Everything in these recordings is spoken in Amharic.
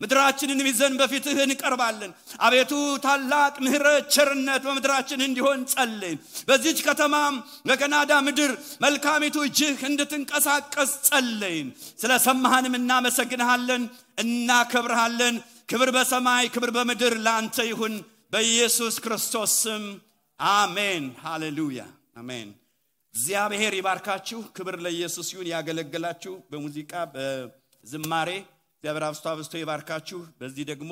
ምድራችንን ይዘን በፊትህ እንቀርባለን አቤቱ ታላቅ ምህረት ቸርነት በምድራችን እንዲሆን ጸልይ በዚህች ከተማም በካናዳ ምድር መልካሚቱ እጅህ እንድትንቀሳቀስ ጸልይ ስለሰማህንም እናመሰግንሃለን እናከብርሃለን ክብር በሰማይ ክብር በምድር ላንተ ይሁን በኢየሱስ ክርስቶስ ስም አሜን ሃሌሉያ አሜን እግዚአብሔር ይባርካችሁ ክብር ለኢየሱስ ይሁን ያገለግላችሁ በሙዚቃ በዝማሬ እግዚአብሔር አብስቶ ይባርካችሁ በዚህ ደግሞ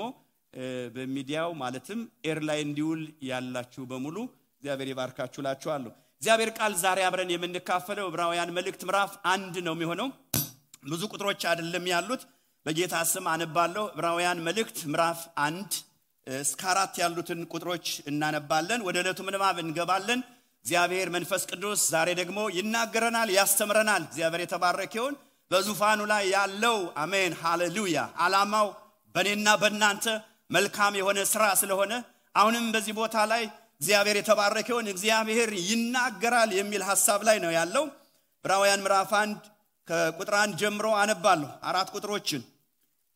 በሚዲያው ማለትም ኤር ላይ እንዲውል ያላችሁ በሙሉ እግዚአብሔር ይባርካችሁ ላችኋለሁ እግዚአብሔር ቃል ዛሬ አብረን የምንካፈለው ዕብራውያን መልእክት ምዕራፍ 1 ነው የሚሆነው ብዙ ቁጥሮች አይደለም ያሉት በጌታ ስም አነባለሁ ዕብራውያን መልእክት ምዕራፍ 1 እስከ 4 ያሉትን ቁጥሮች እናነባለን ወደ ዕለቱ ምንባብ እንገባለን እግዚአብሔር መንፈስ ቅዱስ ዛሬ ደግሞ ይናገረናል ያስተምረናል እግዚአብሔር የተባረከ ይሁን በዙፋኑ ላይ ያለው አሜን ሃሌሉያ ዓላማው በእኔና በእናንተ መልካም የሆነ ሥራ ስለሆነ አሁንም በዚህ ቦታ ላይ እግዚአብሔር የተባረከ ይሁን እግዚአብሔር ይናገራል የሚል ሐሳብ ላይ ነው ያለው ዕብራውያን ምዕራፍ 1 ከቁጥር 1 ጀምሮ አነባለሁ 4 ቁጥሮችን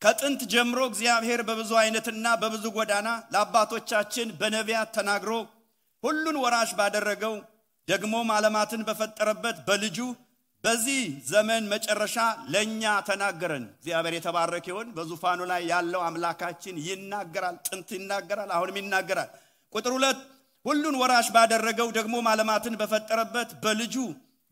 ከጥንት ጀምሮ እግዚአብሔር በብዙ አይነትና በብዙ ጎዳና ለአባቶቻችን በነቢያት ተናግሮ ሁሉን ወራሽ ባደረገው ደግሞ ዓለማትን በፈጠረበት በልጁ በዚህ ዘመን መጨረሻ ለኛ ተናገረን እግዚአብሔር የተባረከ ይሁን በዙፋኑ ላይ ያለው አምላካችን ይናገራል ጥንት ይናገራል አሁንም ይናገራል ቁጥር 2 ሁሉን ወራሽ ባደረገው ደግሞ ዓለማትን በፈጠረበት በልጁ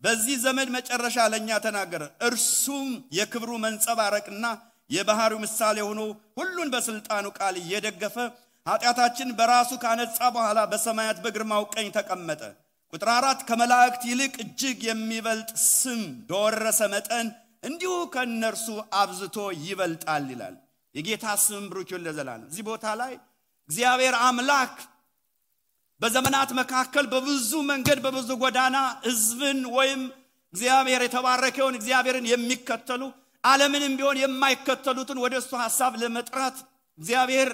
በዚህ ዘመን መጨረሻ ለኛ ተናገረ እርሱም የክብሩ መንጸባረቅና የባህሩ ምሳሌ ሆኖ ሁሉን በስልጣኑ ቃል እየደገፈ ኃጢአታችን በራሱ ካነጻ በኋላ በሰማያት በግርማው ቀኝ ተቀመጠ ቁጥር 4 ከመላእክት ይልቅ እጅግ የሚበልጥ ስም በወረሰ መጠን እንዲሁ ከነርሱ አብዝቶ ይበልጣል ይላል የጌታ ስም ብሩክ ይሁን ለዘላለም እዚህ ቦታ ላይ እግዚአብሔር አምላክ በዘመናት መካከል በብዙ መንገድ በብዙ ጎዳና ሕዝብን ወይም እግዚአብሔር የተባረከውን እግዚአብሔርን የሚከተሉ ዓለምንም ቢሆን የማይከተሉትን ወደሱ ሐሳብ ለመጥራት እግዚአብሔር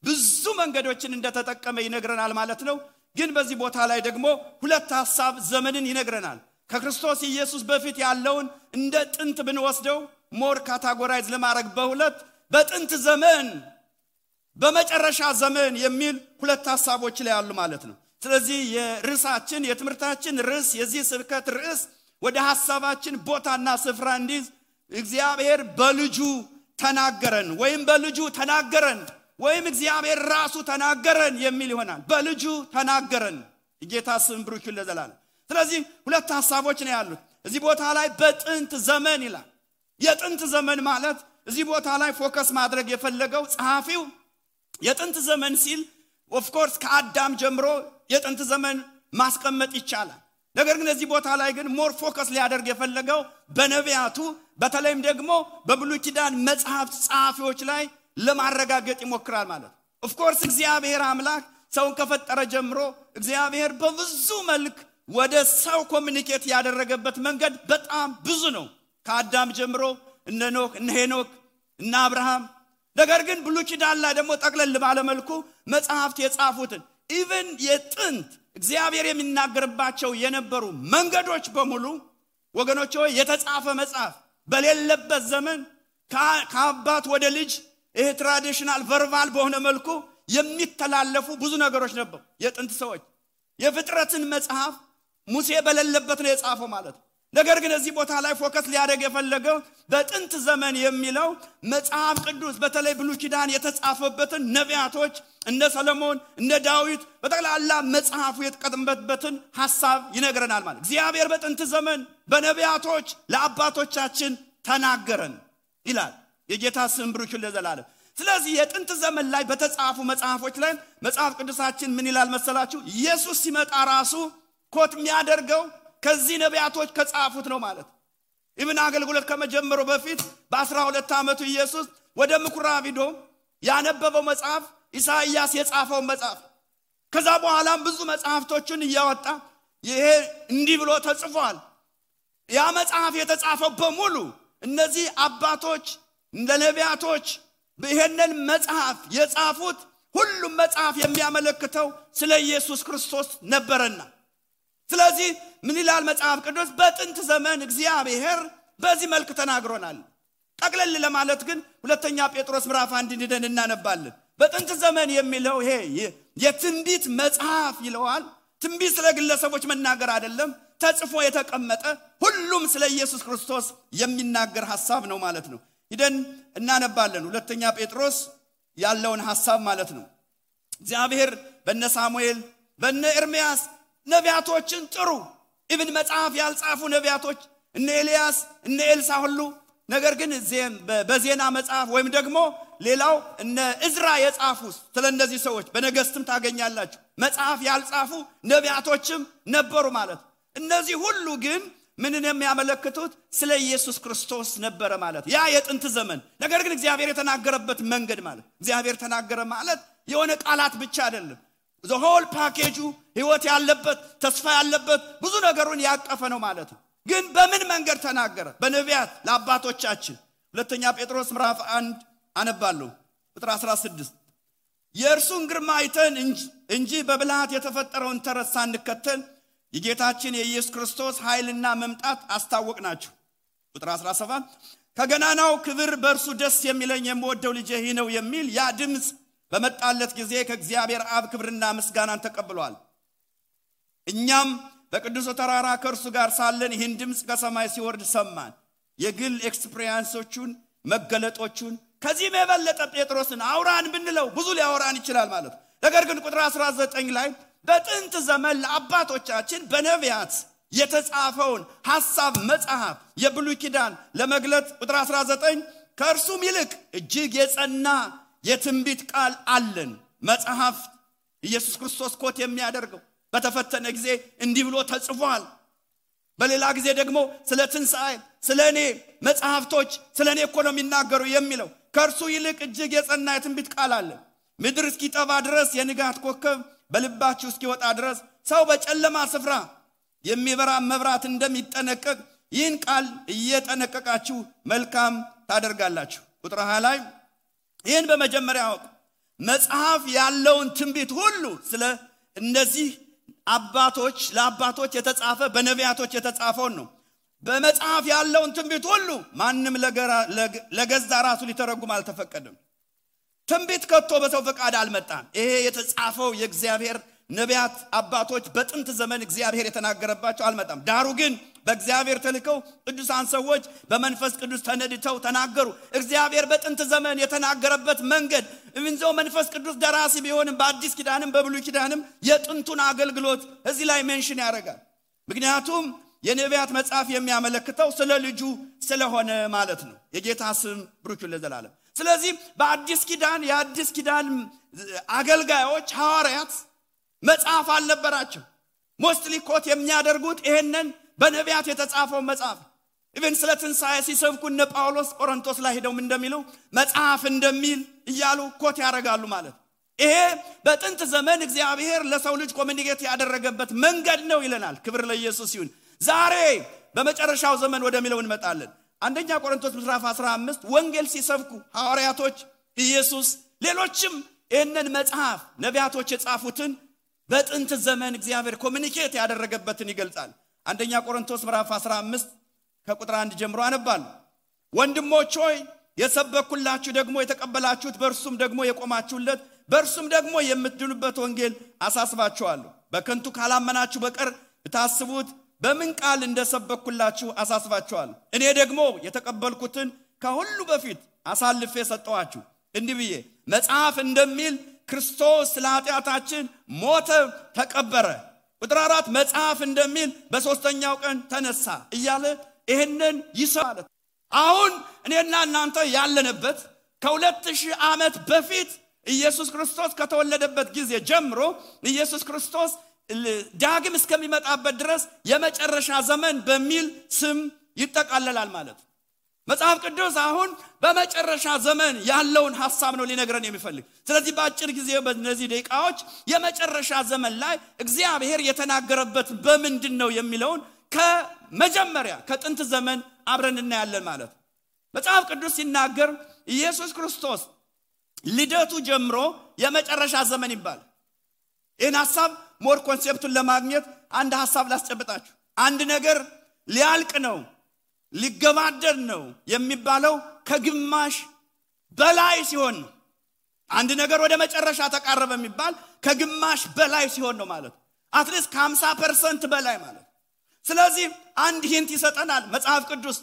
ብዙ መንገዶችን እንደተጠቀመ ይነግረናል ማለት ነው ግን በዚህ ቦታ ላይ ደግሞ ሁለት ሐሳብ ዘመንን ይነግረናል ከክርስቶስ ኢየሱስ በፊት ያለውን እንደ ጥንት ብንወስደው ሞር ካታጎራይዝ ለማድረግ በሁለት በጥንት ዘመን በመጨረሻ ዘመን የሚል ሁለት ሐሳቦች ላይ ያሉ ማለት ነው ስለዚህ የርዕሳችን የትምህርታችን ርዕስ የዚህ ስብከት ርዕስ ወደ ሐሳባችን ቦታና ስፍራ እንዲዝ እግዚአብሔር በልጁ ተናገረን ወይም በልጁ ተናገረን ወይም እግዚአብሔር ራሱ ተናገረን የሚል ይሆናል በልጁ ተናገረን የጌታ ስም ብሩክ ይሁን ለዘላለም ስለዚህ ሁለት ሐሳቦች ነው ያሉት እዚህ ቦታ ላይ በጥንት ዘመን ይላል የጥንት ዘመን ማለት እዚህ ቦታ ላይ ፎከስ ማድረግ የፈለገው ጸሐፊው የጥንት ዘመን ሲል ኦፍ ኮርስ ከአዳም ጀምሮ የጥንት ዘመን ማስቀመጥ ይቻላል ነገር ግን እዚህ ቦታ ላይ ግን ሞር ፎከስ ሊያደርግ የፈለገው በነቢያቱ በተለይም ደግሞ በብሉይ ኪዳን መጽሐፍት ጸሐፊዎች ላይ ለማረጋገጥ ይሞክራል ማለት ኦፍ ኮርስ እግዚአብሔር አምላክ ሰውን ከፈጠረ ጀምሮ እግዚአብሔር በብዙ መልክ ወደ ሰው ኮሙኒኬት ያደረገበት መንገድ በጣም ብዙ ነው ከአዳም ጀምሮ እነ ኖህ እነ ሄኖክ እነ አብርሃም ነገር ግን ብሉይ ኪዳን ላይ ደግሞ ጠቅለል ባለ መልኩ መጽሐፍት የጻፉትን ኢቭን የጥንት እግዚአብሔር የሚናገርባቸው የነበሩ መንገዶች በሙሉ ወገኖች ሆይ የተጻፈ መጽሐፍ በሌለበት ዘመን ከአባት ወደ ልጅ ይሄ ትራዲሽናል ቨርባል በሆነ መልኩ የሚተላለፉ ብዙ ነገሮች ነበሩ የጥንት ሰዎች የፍጥረትን መጽሐፍ ሙሴ በሌለበት ነው የጻፈው ማለት ነገር ግን እዚህ ቦታ ላይ ፎከስ ሊያደርግ የፈለገው በጥንት ዘመን የሚለው መጽሐፍ ቅዱስ በተለይ ብሉይ ኪዳን የተጻፈበትን ነቢያቶች እነ ሰሎሞን እነ ዳዊት በጠቅላላ መጽሐፉ የተቀመጠበትን ሐሳብ ይነግረናል ማለት እግዚአብሔር በጥንት ዘመን በነቢያቶች ለአባቶቻችን ተናገረን ይላል የጌታ ስም ብሩክ ይሁን ለዘላለም ስለዚህ የጥንት ዘመን ላይ በተጻፉ መጽሐፎች ላይ መጽሐፍ ቅዱሳችን ምን ይላል መሰላችሁ ኢየሱስ ሲመጣ ራሱ ኮት የሚያደርገው ከዚህ ነቢያቶች ከጻፉት ነው ማለት ኢብን አገልግሎት ከመጀመሩ በፊት በ12 ዓመቱ ኢየሱስ ወደ ምኩራብ ሄዶ ያነበበው መጽሐፍ ኢሳይያስ የጻፈው መጽሐፍ ከዛ በኋላም ብዙ መጽሐፍቶችን እያወጣ ይሄ እንዲህ ብሎ ተጽፏል ያ መጽሐፍ የተጻፈው በሙሉ እነዚህ አባቶች እንደ ነቢያቶች በይሄንን መጽሐፍ የጻፉት ሁሉም መጽሐፍ የሚያመለክተው ስለ ኢየሱስ ክርስቶስ ነበርና ስለዚህ ምን ይላል መጽሐፍ ቅዱስ በጥንት ዘመን እግዚአብሔር በዚህ መልኩ ተናግሮናል ጠቅለል ለማለት ግን ሁለተኛ ጴጥሮስ ምዕራፍ 1 እንደን እናነባለን። በጥንት ዘመን የሚለው ይሄ የትንቢት መጽሐፍ ይለዋል። ትንቢት ስለ ግለሰቦች መናገር አይደለም፣ ተጽፎ የተቀመጠ ሁሉም ስለ ኢየሱስ ክርስቶስ የሚናገር ሐሳብ ነው ማለት ነው። ሄደን እናነባለን ሁለተኛ ጴጥሮስ ያለውን ሐሳብ ማለት ነው። እግዚአብሔር በነ ሳሙኤል በነ ኤርምያስ ነቢያቶችን ጥሩ ኢብን መጽሐፍ ያልጻፉ ነቢያቶች እነ ኤልያስ እነ ኤልሳ ሁሉ ነገር ግን በዜና መጽሐፍ ወይም ደግሞ ሌላው እነ እዝራ የጻፉ ስለነዚህ ሰዎች በነገስትም ታገኛላችሁ መጽሐፍ ያልጻፉ ነቢያቶችም ነበሩ ማለት። እነዚህ ሁሉ ግን ምንን የሚያመለክቱት ስለ ኢየሱስ ክርስቶስ ነበር ማለት። ያ የጥንት ዘመን ነገር ግን እግዚአብሔር የተናገረበት መንገድ ማለት እግዚአብሔር ተናገረ ማለት የሆነ ቃላት ብቻ አይደለም። the whole package ህይወት ያለበት ተስፋ ያለበት ብዙ ነገሩን ያቀፈ ነው ማለት ነው። ግን በምን መንገድ ተናገረ? በነቢያት ለአባቶቻችን። ሁለተኛ ጴጥሮስ ምዕራፍ 1 አነባለሁ ቁጥር 16 የእርሱን ግርማ አይተን እንጂ በብልሃት የተፈጠረውን ተረት ሳንከተል የጌታችን የኢየሱስ ክርስቶስ ኃይልና መምጣት አስታወቅናችሁ። ቁጥር 17 ከገናናው ክብር በእርሱ ደስ የሚለኝ የምወደው ልጄ ይህ ነው የሚል ያ ድምጽ በመጣለት ጊዜ ከእግዚአብሔር አብ ክብርና ምስጋናን ተቀብሏል። እኛም በቅዱስ ተራራ ከእርሱ ጋር ሳለን ይህን ድምጽ ከሰማይ ሲወርድ ሰማን። የግል ኤክስፒሪየንሶቹን መገለጦቹን ከዚህ የበለጠ ጴጥሮስን አውራን ብንለው ብዙ ሊያወራን ይችላል ማለት። ነገር ግን ቁጥር 19 ላይ በጥንት ዘመን ለአባቶቻችን በነቢያት የተጻፈውን ሐሳብ መጽሐፍ የብሉይ ኪዳን ለመግለጥ ቁጥር 19 ከእርሱም ይልቅ እጅግ የጸና የትንቢት ቃል አለን። መጽሐፍ ኢየሱስ ክርስቶስ ኮት የሚያደርገው በተፈተነ ጊዜ እንዲህ ብሎ ተጽፏል። በሌላ ጊዜ ደግሞ ስለ ትንሣኤ ስለኔ መጽሐፍቶች ስለኔ እኮ ነው የሚናገሩ የሚለው ከእርሱ ይልቅ እጅግ የጸና የትንቢት ቃል አለን። ምድር እስኪጠባ ድረስ የንጋት ኮከብ በልባችሁ እስኪወጣ ድረስ ሰው በጨለማ ስፍራ የሚበራ መብራት እንደሚጠነቀቅ ይህን ቃል እየጠነቀቃችሁ መልካም ታደርጋላችሁ። ቁጥር 20 ላይ ይህን በመጀመሪያ አውቅ መጽሐፍ ያለውን ትንቢት ሁሉ ስለ እነዚህ አባቶች ለአባቶች የተጻፈ በነቢያቶች የተጻፈውን ነው። በመጽሐፍ ያለውን ትንቢት ሁሉ ማንም ለገዛ ራሱ ሊተረጉም አልተፈቀደም። ትንቢት ከቶ በሰው ፈቃድ አልመጣም። ይሄ የተጻፈው የእግዚአብሔር ነቢያት አባቶች በጥንት ዘመን እግዚአብሔር የተናገረባቸው አልመጣም። ዳሩ ግን በእግዚአብሔር ተልከው ቅዱሳን ሰዎች በመንፈስ ቅዱስ ተነድተው ተናገሩ። እግዚአብሔር በጥንት ዘመን የተናገረበት መንገድ እንዘው መንፈስ ቅዱስ ደራሲ ቢሆንም በአዲስ ኪዳንም በብሉይ ኪዳንም የጥንቱን አገልግሎት እዚህ ላይ ሜንሽን ያደርጋል። ምክንያቱም የነቢያት መጽሐፍ የሚያመለክተው ስለ ልጁ ስለሆነ ማለት ነው። የጌታ ስም ብሩክ ለዘላለም። ስለዚህ በአዲስ ኪዳን የአዲስ ኪዳን አገልጋዮች ሐዋርያት መጽሐፍ አልነበራቸው። ሞስትሊ ኮት የሚያደርጉት ይሄንን በነቢያት የተጻፈው መጽሐፍ ኢቭን ስለ ትንሣኤ ሲሰብኩ እነ ጳውሎስ ቆሮንቶስ ላይ ሄደው እንደሚሉ መጽሐፍ እንደሚል እያሉ ኮት ያደርጋሉ ማለት። ይሄ በጥንት ዘመን እግዚአብሔር ለሰው ልጅ ኮሚኒኬት ያደረገበት መንገድ ነው ይለናል። ክብር ለኢየሱስ ይሁን። ዛሬ በመጨረሻው ዘመን ወደሚለው እንመጣለን። አንደኛ ቆሮንቶስ ምዕራፍ 15 ወንጌል ሲሰብኩ ሐዋርያቶች ኢየሱስ ሌሎችም ይሄንን መጽሐፍ ነቢያቶች የጻፉትን በጥንት ዘመን እግዚአብሔር ኮሚኒኬት ያደረገበትን ይገልጻል። አንደኛ ቆሮንቶስ ምዕራፍ 15 ከቁጥር 1 ጀምሮ አነባለሁ። ወንድሞች ሆይ የሰበኩላችሁ ደግሞ የተቀበላችሁት በእርሱም ደግሞ የቆማችሁለት በእርሱም ደግሞ የምትድኑበት ወንጌል አሳስባችኋለሁ። በከንቱ ካላመናችሁ በቀር ብታስቡት በምን ቃል እንደሰበኩላችሁ አሳስባችኋለሁ። እኔ ደግሞ የተቀበልኩትን ከሁሉ በፊት አሳልፌ ሰጠኋችሁ እንዲህ ብዬ መጽሐፍ እንደሚል ክርስቶስ ለኃጢአታችን ሞተ ተቀበረ። ቁጥር 4 መጽሐፍ እንደሚል በሶስተኛው ቀን ተነሳ እያለ ይሄንን ይሰማል። አሁን እኔና እናንተ ያለንበት ከ2000 ዓመት በፊት ኢየሱስ ክርስቶስ ከተወለደበት ጊዜ ጀምሮ ኢየሱስ ክርስቶስ ዳግም እስከሚመጣበት ድረስ የመጨረሻ ዘመን በሚል ስም ይጠቃለላል ማለት። መጽሐፍ ቅዱስ አሁን በመጨረሻ ዘመን ያለውን ሐሳብ ነው ሊነግረን የሚፈልግ። ስለዚህ በአጭር ጊዜ በእነዚህ ደቂቃዎች የመጨረሻ ዘመን ላይ እግዚአብሔር የተናገረበት በምንድነው የሚለውን ከመጀመሪያ ከጥንት ዘመን አብረን እናያለን ማለት። መጽሐፍ ቅዱስ ሲናገር ኢየሱስ ክርስቶስ ልደቱ ጀምሮ የመጨረሻ ዘመን ይባላል። ይህን ሐሳብ ሞር ኮንሴፕቱን ለማግኘት አንድ ሐሳብ ላስጨብጣችሁ። አንድ ነገር ሊያልቅ ነው ሊገባደድ ነው የሚባለው ከግማሽ በላይ ሲሆን ነው። አንድ ነገር ወደ መጨረሻ ተቃረበ የሚባል ከግማሽ በላይ ሲሆን ነው ማለት አትሊስት ከ50% በላይ ማለት። ስለዚህ አንድ ሂንት ይሰጠናል መጽሐፍ ቅዱስ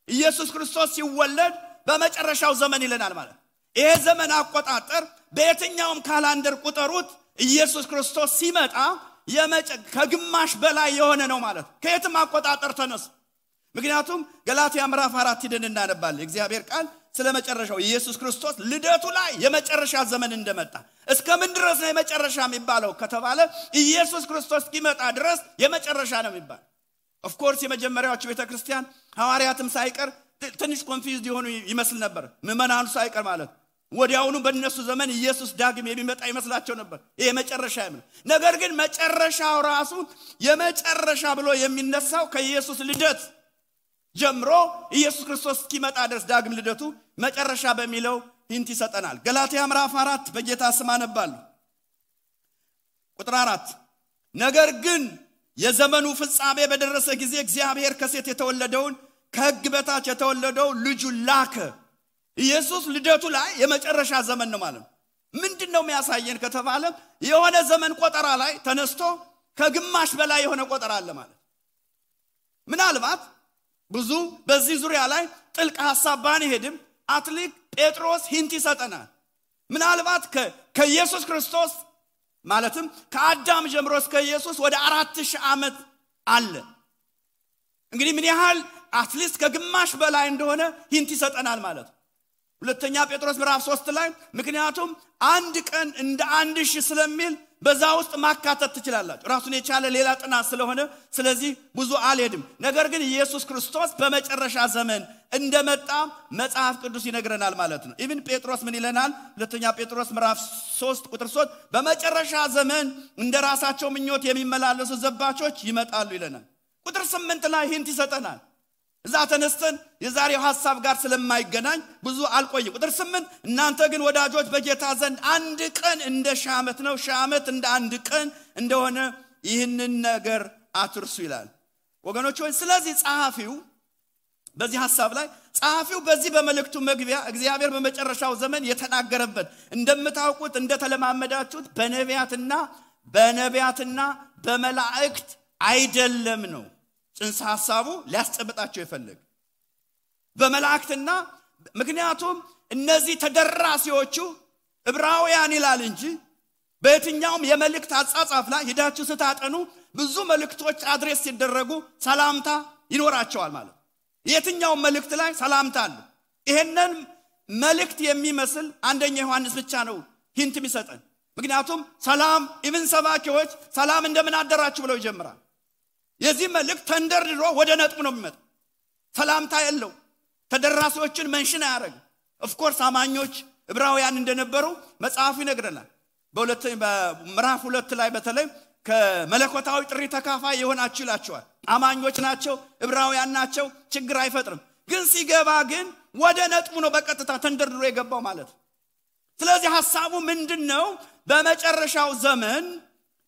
ኢየሱስ ክርስቶስ ሲወለድ በመጨረሻው ዘመን ይለናል ማለት። ይሄ ዘመን አቆጣጠር በየትኛውም ካላንደር ቁጠሩት ኢየሱስ ክርስቶስ ሲመጣ ከግማሽ በላይ የሆነ ነው ማለት ከየትም አቆጣጠር ተነሱ። ምክንያቱም ገላትያ ምዕራፍ 4 ሄደን እናነባለን እግዚአብሔር ቃል ስለመጨረሻው ኢየሱስ ክርስቶስ ልደቱ ላይ የመጨረሻ ዘመን እንደመጣ እስከምን ድረስ ነው የመጨረሻ የሚባለው ከተባለ ኢየሱስ ክርስቶስ እስኪመጣ ድረስ የመጨረሻ ነው የሚባል። ኦፍ ኮርስ የመጀመሪያዎቹ ቤተክርስቲያን ሐዋርያትም ሳይቀር ትንሽ ኮንፊውዝድ የሆኑ ይመስል ነበር ምዕመናኑ ሳይቀር ማለት ወዲያውኑ በእነሱ ዘመን ኢየሱስ ዳግም የሚመጣ ይመስላቸው ነበር ይሄ መጨረሻ ነው። ነገር ግን መጨረሻው ራሱ የመጨረሻ ብሎ የሚነሳው ከኢየሱስ ልደት ጀምሮ ኢየሱስ ክርስቶስ እስኪመጣ ድረስ ዳግም ልደቱ መጨረሻ በሚለው ሂንት ይሰጠናል። ገላትያ ምዕራፍ 4 በጌታ ስም አነባለሁ ቁጥር 4 ነገር ግን የዘመኑ ፍጻሜ በደረሰ ጊዜ እግዚአብሔር ከሴት የተወለደውን ከሕግ በታች የተወለደው ልጁ ላከ። ኢየሱስ ልደቱ ላይ የመጨረሻ ዘመን ነው ማለት ምንድነው የሚያሳየን ከተባለ የሆነ ዘመን ቆጠራ ላይ ተነስቶ ከግማሽ በላይ የሆነ ቆጠራ አለ ማለት። ምናልባት ብዙ በዚህ ዙሪያ ላይ ጥልቅ ሐሳብ ባንሄድም አትሊክ ጴጥሮስ ሂንት ይሰጠናል። ምናልባት ከኢየሱስ ክርስቶስ ማለትም ከአዳም ጀምሮ እስከ ኢየሱስ ወደ 4000 ዓመት አለ። እንግዲህ ምን ያህል አትሊስት ከግማሽ በላይ እንደሆነ ሂንት ይሰጠናል ማለት። ሁለተኛ ጴጥሮስ ምዕራፍ 3 ላይ ምክንያቱም አንድ ቀን እንደ 1000 ስለሚል በዛ ውስጥ ማካተት ትችላላችሁ ራሱን የቻለ ሌላ ጥናት ስለሆነ ስለዚህ ብዙ አልሄድም። ነገር ግን ኢየሱስ ክርስቶስ በመጨረሻ ዘመን እንደመጣ መጽሐፍ ቅዱስ ይነግረናል ማለት ነው። ኢቭን ጴጥሮስ ምን ይለናል? ሁለተኛ ጴጥሮስ ምዕራፍ 3 ቁጥር 3 በመጨረሻ ዘመን እንደራሳቸው ምኞት የሚመላለሱ ዘባቾች ይመጣሉ ይለናል። ቁጥር 8 ላይ ሂንት ይሰጠናል። እዛ ተነስተን የዛሬው ሐሳብ ጋር ስለማይገናኝ ብዙ አልቆይ። ቁጥር 8 እናንተ ግን ወዳጆች በጌታ ዘንድ አንድ ቀን እንደ ሺህ ዓመት ነው ሺህ ዓመት እንደ አንድ ቀን እንደሆነ ይህንን ነገር አትርሱ ይላል። ወገኖች ሆይ ስለዚህ ጸሐፊው በዚህ ሐሳብ ላይ ጸሐፊው በዚህ በመልእክቱ መግቢያ እግዚአብሔር በመጨረሻው ዘመን የተናገረበት እንደምታውቁት እንደተለማመዳችሁት በነቢያትና በመላእክት አይደለም ነው ጽንሰ ሐሳቡ ሊያስጨብጣቸው ይፈልግ በመላእክትና ምክንያቱም እነዚህ ተደራሲዎቹ ዕብራውያን ይላል እንጂ በየትኛውም የመልእክት አጻጻፍ ላይ ሄዳችሁ ስታጠኑ ብዙ መልእክቶች አድሬስ ሲደረጉ ሰላምታ ይኖራቸዋል ማለት የትኛውም መልእክት ላይ ሰላምታ አለ። ይሄንን መልእክት የሚመስል አንደኛ ዮሐንስ ብቻ ነው ሂንት የሚሰጠን። ምክንያቱም ሰላም ኢቭን ሰባኪዎች ሰላም እንደምን አደራችሁ ብለው ይጀምራል። የዚህ መልእክት ተንደርድሮ ወደ ነጥብ ነው የሚመጣ ሰላምታ የለው ተደራሲዎችን መንሽን ያደርግ። ኦፍ ኮርስ አማኞች ዕብራውያን እንደነበሩ መጽሐፉ ይነግረናል። በምዕራፍ 2 ላይ በተለይ ከመለኮታዊ ጥሪ ተካፋይ የሆናችሁ ይላቸዋል። አማኞች ናቸው ዕብራውያን ናቸው ችግር አይፈጥርም። ግን ሲገባ ግን ወደ ነጥቡ ነው በቀጥታ ተንደርድሮ የገባው ማለት። ስለዚህ ሐሳቡ ምንድነው?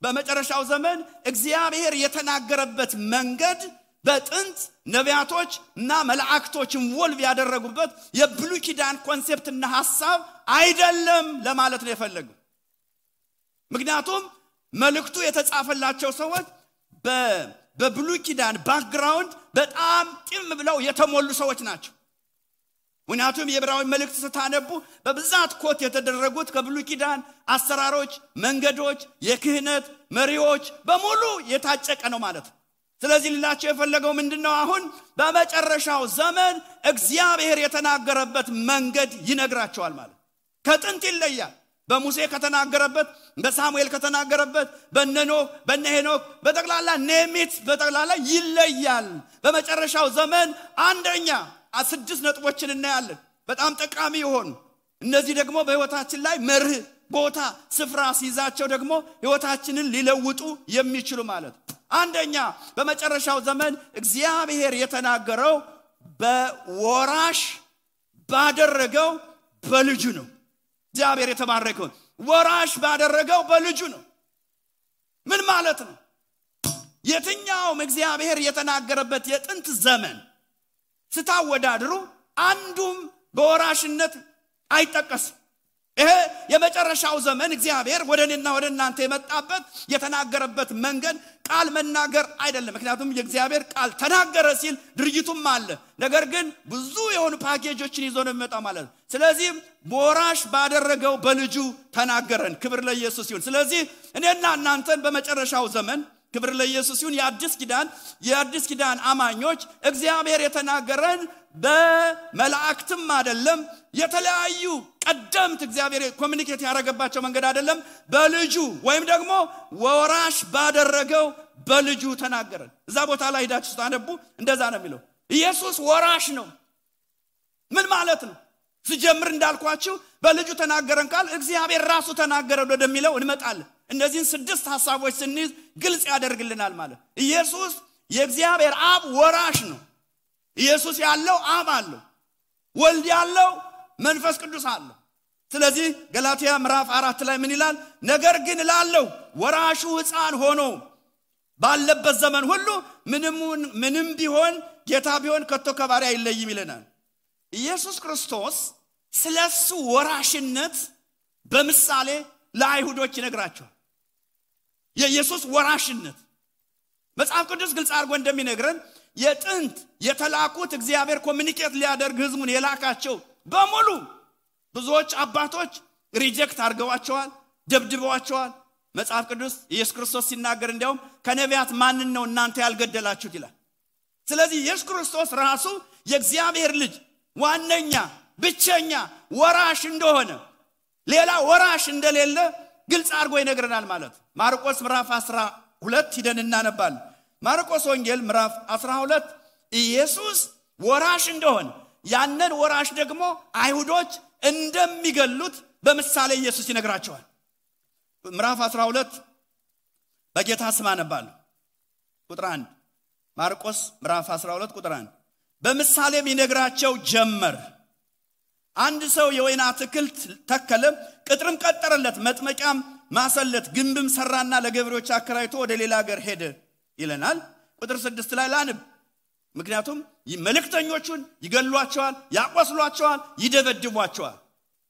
በመጨረሻው ዘመን እግዚአብሔር የተናገረበት መንገድ በጥንት ነቢያቶች እና መላእክቶች ኢንቮልቭ ያደረጉበት የብሉይ ኪዳን ኮንሴፕትና ሐሳብ አይደለም ለማለት ነው የፈለገው። ምክንያቱም መልእክቱ የተጻፈላቸው ሰዎች በብሉይ ኪዳን ባክግራውንድ በጣም ጢም ብለው የተሞሉ ሰዎች ናቸው። ምክንያቱም የዕብራዊ መልእክት ስታነቡ በብዛት ኮት የተደረጉት ከብሉይ ኪዳን አሰራሮች፣ መንገዶች፣ የክህነት መሪዎች በሙሉ የታጨቀ ነው ማለት። ስለዚህ ሊላቸው የፈለገው ምንድነው? አሁን በመጨረሻው ዘመን እግዚአብሔር የተናገረበት መንገድ ይነግራቸዋል ማለት። ከጥንት ይለያል። በሙሴ ከተናገረበት፣ በሳሙኤል ከተናገረበት፣ በነኖህ በነሄኖክ በጠቅላላ ኔሚት በጠቅላላ ይለያል። በመጨረሻው ዘመን አንደኛ 6 ነጥቦችን እናያለን በጣም ጠቃሚ የሆኑ እነዚህ ደግሞ በህይወታችን ላይ መርህ ቦታ ስፍራ ሲይዛቸው ደግሞ ህይወታችንን ሊለውጡ የሚችሉ ማለት። አንደኛ በመጨረሻው ዘመን እግዚአብሔር የተናገረው በወራሽ ባደረገው በልጁ ነው። እግዚአብሔር የተባረከው ወራሽ ባደረገው በልጁ ነው። ምን ማለት ነው? የትኛውም እግዚአብሔር የተናገረበት የጥንት ዘመን ስታወዳድሩ አንዱም በወራሽነት አይጠቀስም። ይሄ የመጨረሻው ዘመን እግዚአብሔር ወደኔና ወደ እናንተ የመጣበት የተናገረበት መንገድ ቃል መናገር አይደለም። ምክንያቱም የእግዚአብሔር ቃል ተናገረ ሲል ድርጊቱም አለ። ነገር ግን ብዙ የሆኑ ፓኬጆችን ይዞ ነው የሚመጣው ማለት ነው። ስለዚህ ወራሽ ባደረገው በልጁ ተናገረን። ክብር ለኢየሱስ ይሁን። ስለዚህ እኔና እናንተን በመጨረሻው ዘመን ክብር ለኢየሱስ ይሁን የአዲስ ኪዳን አማኞች እግዚአብሔር የተናገረን በመላእክትም አይደለም የተለያዩ ቀደምት እግዚአብሔር ኮሙኒኬት ያደረገባቸው መንገድ አይደለም በልጁ ወይም ደግሞ ወራሽ ባደረገው በልጁ ተናገረን። እዛ ቦታ ላይ ሄዳችሁ ታነቡ እንደዛ ነው የሚለው። ኢየሱስ ወራሽ ነው። ምን ማለት ነው? ሲጀምር እንዳልኳችሁ በልጁ ተናገረን ቃል እግዚአብሔር ራሱ ተናገረን ወደሚለው እንመጣለን። እነዚህን 6 ሐሳቦች ስንይዝ ግልጽ ያደርግልናል ማለት። ኢየሱስ የእግዚአብሔር አብ ወራሽ ነው። ኢየሱስ ያለው አብ አለው፣ ወልድ ያለው መንፈስ ቅዱስ አለው። ስለዚህ ገላትያ ምዕራፍ 4 ላይ ምን ይላል? ነገር ግን ላለው ወራሹ ሕፃን ሆኖ ባለበት ዘመን ሁሉ ምንም ቢሆን ጌታ ቢሆን ከቶ ከባሪያ አይለይም ይለናል። ኢየሱስ ክርስቶስ ስለሱ ወራሽነት በምሳሌ ለአይሁዶች ይነግራቸዋል። የኢየሱስ ወራሽነት መጽሐፍ ቅዱስ ግልጽ አድርጎ እንደሚነግረን የጥንት የተላኩት እግዚአብሔር ኮሙኒኬት ሊያደርግ ህዝቡን የላካቸው በሙሉ ብዙዎች አባቶች ሪጀክት አድርገዋቸዋል፣ ደብድበዋቸዋል። መጽሐፍ ቅዱስ ኢየሱስ ክርስቶስ ሲናገር እንዲያውም ከነቢያት ማንን ነው እናንተ ያልገደላችሁት ይላል። ስለዚህ ኢየሱስ ክርስቶስ ራሱ የእግዚአብሔር ልጅ ዋነኛ ብቸኛ ወራሽ እንደሆነ ሌላ ወራሽ እንደሌለ ግልጽ አድርጎ ይነግረናል ማለት። ማርቆስ ምዕራፍ 12 ሄደን እናነባለን። ማርቆስ ወንጌል ምዕራፍ 12 ኢየሱስ ወራሽ እንደሆነ ያንን ወራሽ ደግሞ አይሁዶች እንደሚገሉት በምሳሌ ኢየሱስ ይነግራቸዋል። ምዕራፍ 12 በጌታ ስም አነባለሁ። ቁጥር 1 ማርቆስ ምዕራፍ 12 ቁጥር 1 በምሳሌም ይነግራቸው ጀመር። አንድ ሰው የወይን አትክልት ተከለ፣ ቅጥርም ቀጠረለት፣ መጥመቂያም ማሰለት፣ ግንብም ሰራና ለገበሬዎች አከራይቶ ወደ ሌላ ሀገር ሄደ ይለናል። ቁጥር 6 ላይ ላንብ። ምክንያቱም መልእክተኞቹን ይገሏቸዋል፣ ያቆስሏቸዋል፣ ይደበድቧቸዋል።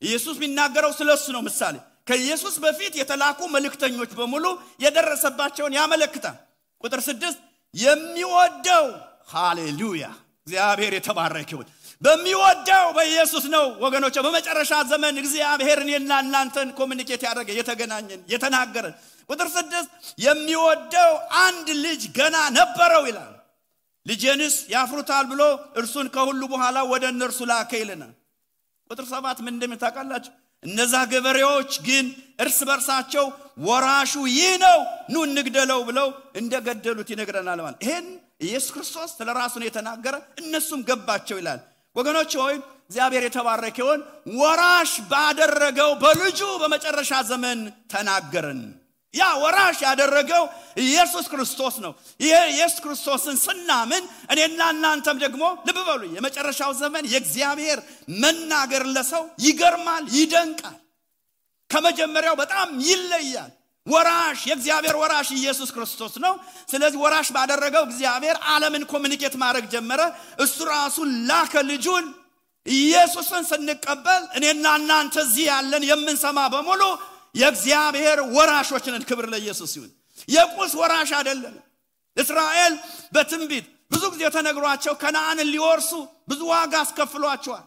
ኢየሱስ የሚናገረው ስለሱ ነው። ምሳሌ ከኢየሱስ በፊት የተላኩ መልእክተኞች በሙሉ የደረሰባቸውን ያመለክታል። ቁጥር 6 የሚወደው ሃሌሉያ እግዚአብሔር የተባረከ ይሁን በሚወደው በኢየሱስ ነው ወገኖች። በመጨረሻ ዘመን እግዚአብሔር እኔና እናንተን ኮሙኒኬት ያደረገ የተገናኘን የተናገረን። ቁጥር 6 የሚወደው አንድ ልጅ ገና ነበረው ይላል። ልጄንስ ያፍሩታል ብሎ እርሱን ከሁሉ በኋላ ወደ እነርሱ ላከ ይለናል። ቁጥር 7 ምን እንደምታውቃላችሁ? እነዛ ገበሬዎች ግን እርስ በርሳቸው ወራሹ ይህ ነው ኑ እንግደለው ብለው እንደገደሉት ይነግረናል ማለት። ይሄን ኢየሱስ ክርስቶስ ስለራሱ ነው የተናገረ፣ እነሱም ገባቸው ይላል። ወገኖች ሆይ እግዚአብሔር የተባረከ ይሁን። ወራሽ ባደረገው በልጁ በመጨረሻ ዘመን ተናገረን። ያ ወራሽ ያደረገው ኢየሱስ ክርስቶስ ነው። ይሄ ኢየሱስ ክርስቶስን ስናምን እኔና እናንተም ደግሞ ልብ በሉ የመጨረሻው ዘመን የእግዚአብሔር መናገር ለሰው ይገርማል፣ ይደንቃል። ከመጀመሪያው በጣም ይለያል። ወራሽ የእግዚአብሔር ወራሽ ኢየሱስ ክርስቶስ ነው። ስለዚህ ወራሽ ባደረገው እግዚአብሔር ዓለምን ኮሙኒኬት ማድረግ ጀመረ። እሱ ራሱ ላከ ልጁን። ኢየሱስን ስንቀበል እኔና እናንተ እዚህ ያለን የምንሰማ በሙሉ የእግዚአብሔር ወራሾች ነን። ክብር ለኢየሱስ ይሁን። የቁስ ወራሽ አይደለም። እስራኤል በትንቢት ብዙ ጊዜ ተነግሯቸው ከነዓንን ሊወርሱ ብዙ ዋጋ አስከፍሏቸዋል።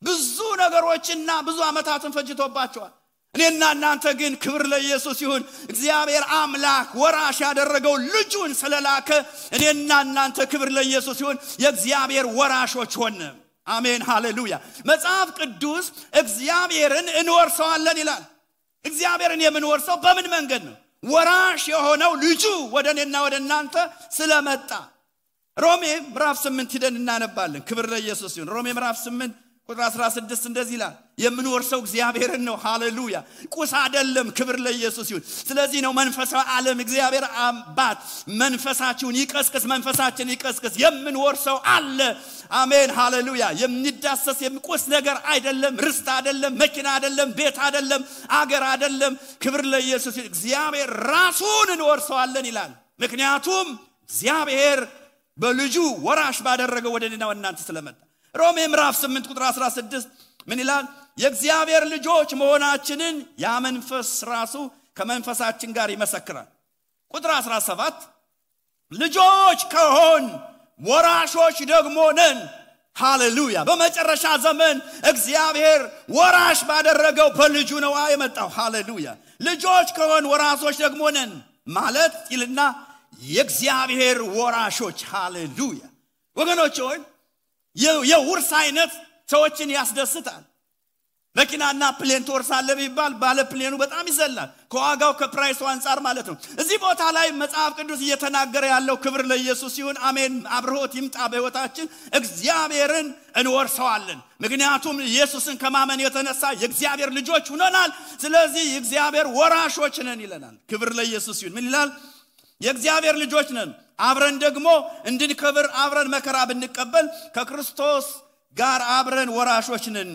ብዙ ነገሮችና ብዙ ዓመታትን ፈጅቶባቸዋል። እኔና እናንተ ግን ክብር ለኢየሱስ ይሁን እግዚአብሔር አምላክ ወራሽ ያደረገው ልጁን ስለላከ እኔና እናንተ ክብር ለኢየሱስ ይሁን የእግዚአብሔር ወራሾች ሆነ። አሜን ሃሌሉያ። መጽሐፍ ቅዱስ እግዚአብሔርን እንወርሰዋለን ይላል። እግዚአብሔርን የምንወርሰው በምን መንገድ ነው? ወራሽ የሆነው ልጁ ወደ እኔና ወደ እናንተ ስለመጣ። ሮሜ ምዕራፍ 8 ሄደን እናነባለን። ክብር ለኢየሱስ ይሁን። ሮሜ ምዕራፍ 8 ቁጥር 16 እንደዚህ ይላል። የምንወርሰው እግዚአብሔርን ነው። ሃሌሉያ። ቁስ አይደለም። ክብር ለኢየሱስ ይሁን። ስለዚህ ነው መንፈሳዊ ዓለም እግዚአብሔር አባት መንፈሳችሁን ይቀስቅስ፣ መንፈሳችን ይቀስቅስ። የምንወርሰው አለ። አሜን ሃሌሉያ። የሚዳሰስ የሚቆስ ነገር አይደለም። ርስት አይደለም፣ መኪና አይደለም፣ ቤት አይደለም፣ አገር አይደለም። ክብር ለኢየሱስ ይሁን። እግዚአብሔር ራሱን እንወርሰዋለን ይላል። ምክንያቱም እግዚአብሔር በልጁ ወራሽ ባደረገው ወደኔና ወናንተ ስለመጣ ሮሜ ምዕራፍ 8 ቁጥር 16 ምን ይላል የእግዚአብሔር ልጆች መሆናችንን ያ መንፈስ ራሱ ከመንፈሳችን ጋር ይመሰክራል ቁጥር 17 ልጆች ከሆን ወራሾች ደግሞ ነን ሃሌሉያ በመጨረሻ ዘመን እግዚአብሔር ወራሽ ባደረገው በልጁ ነው የመጣው ሃሌሉያ ልጆች ከሆን ወራሾች ደግሞ ነን ማለት ይልና የእግዚአብሔር ወራሾች ሃሌሉያ ወገኖች ሆይ የውርስ አይነት ሰዎችን ያስደስታል መኪናና ፕሌን ተወርሳለህ ቢባል ባለ ፕሌኑ በጣም ይዘላል ከዋጋው ከፕራይሱ አንፃር ማለት ነው እዚህ ቦታ ላይ መጽሐፍ ቅዱስ እየተናገረ ያለው ክብር ለኢየሱስ ይሁን አሜን አብርሆት ይምጣ በህይወታችን እግዚአብሔርን እንወርሰዋለን ምክንያቱም ኢየሱስን ከማመን የተነሳ የእግዚአብሔር ልጆች ሆነናል ስለዚህ የእግዚአብሔር ወራሾች ነን ይለናል ክብር ለኢየሱስ ይሁን ምን ይላል የእግዚአብሔር ልጆች ነን አብረን ደግሞ እንድንከብር አብረን መከራ ብንቀበል ከክርስቶስ ጋር አብረን ወራሾች ነን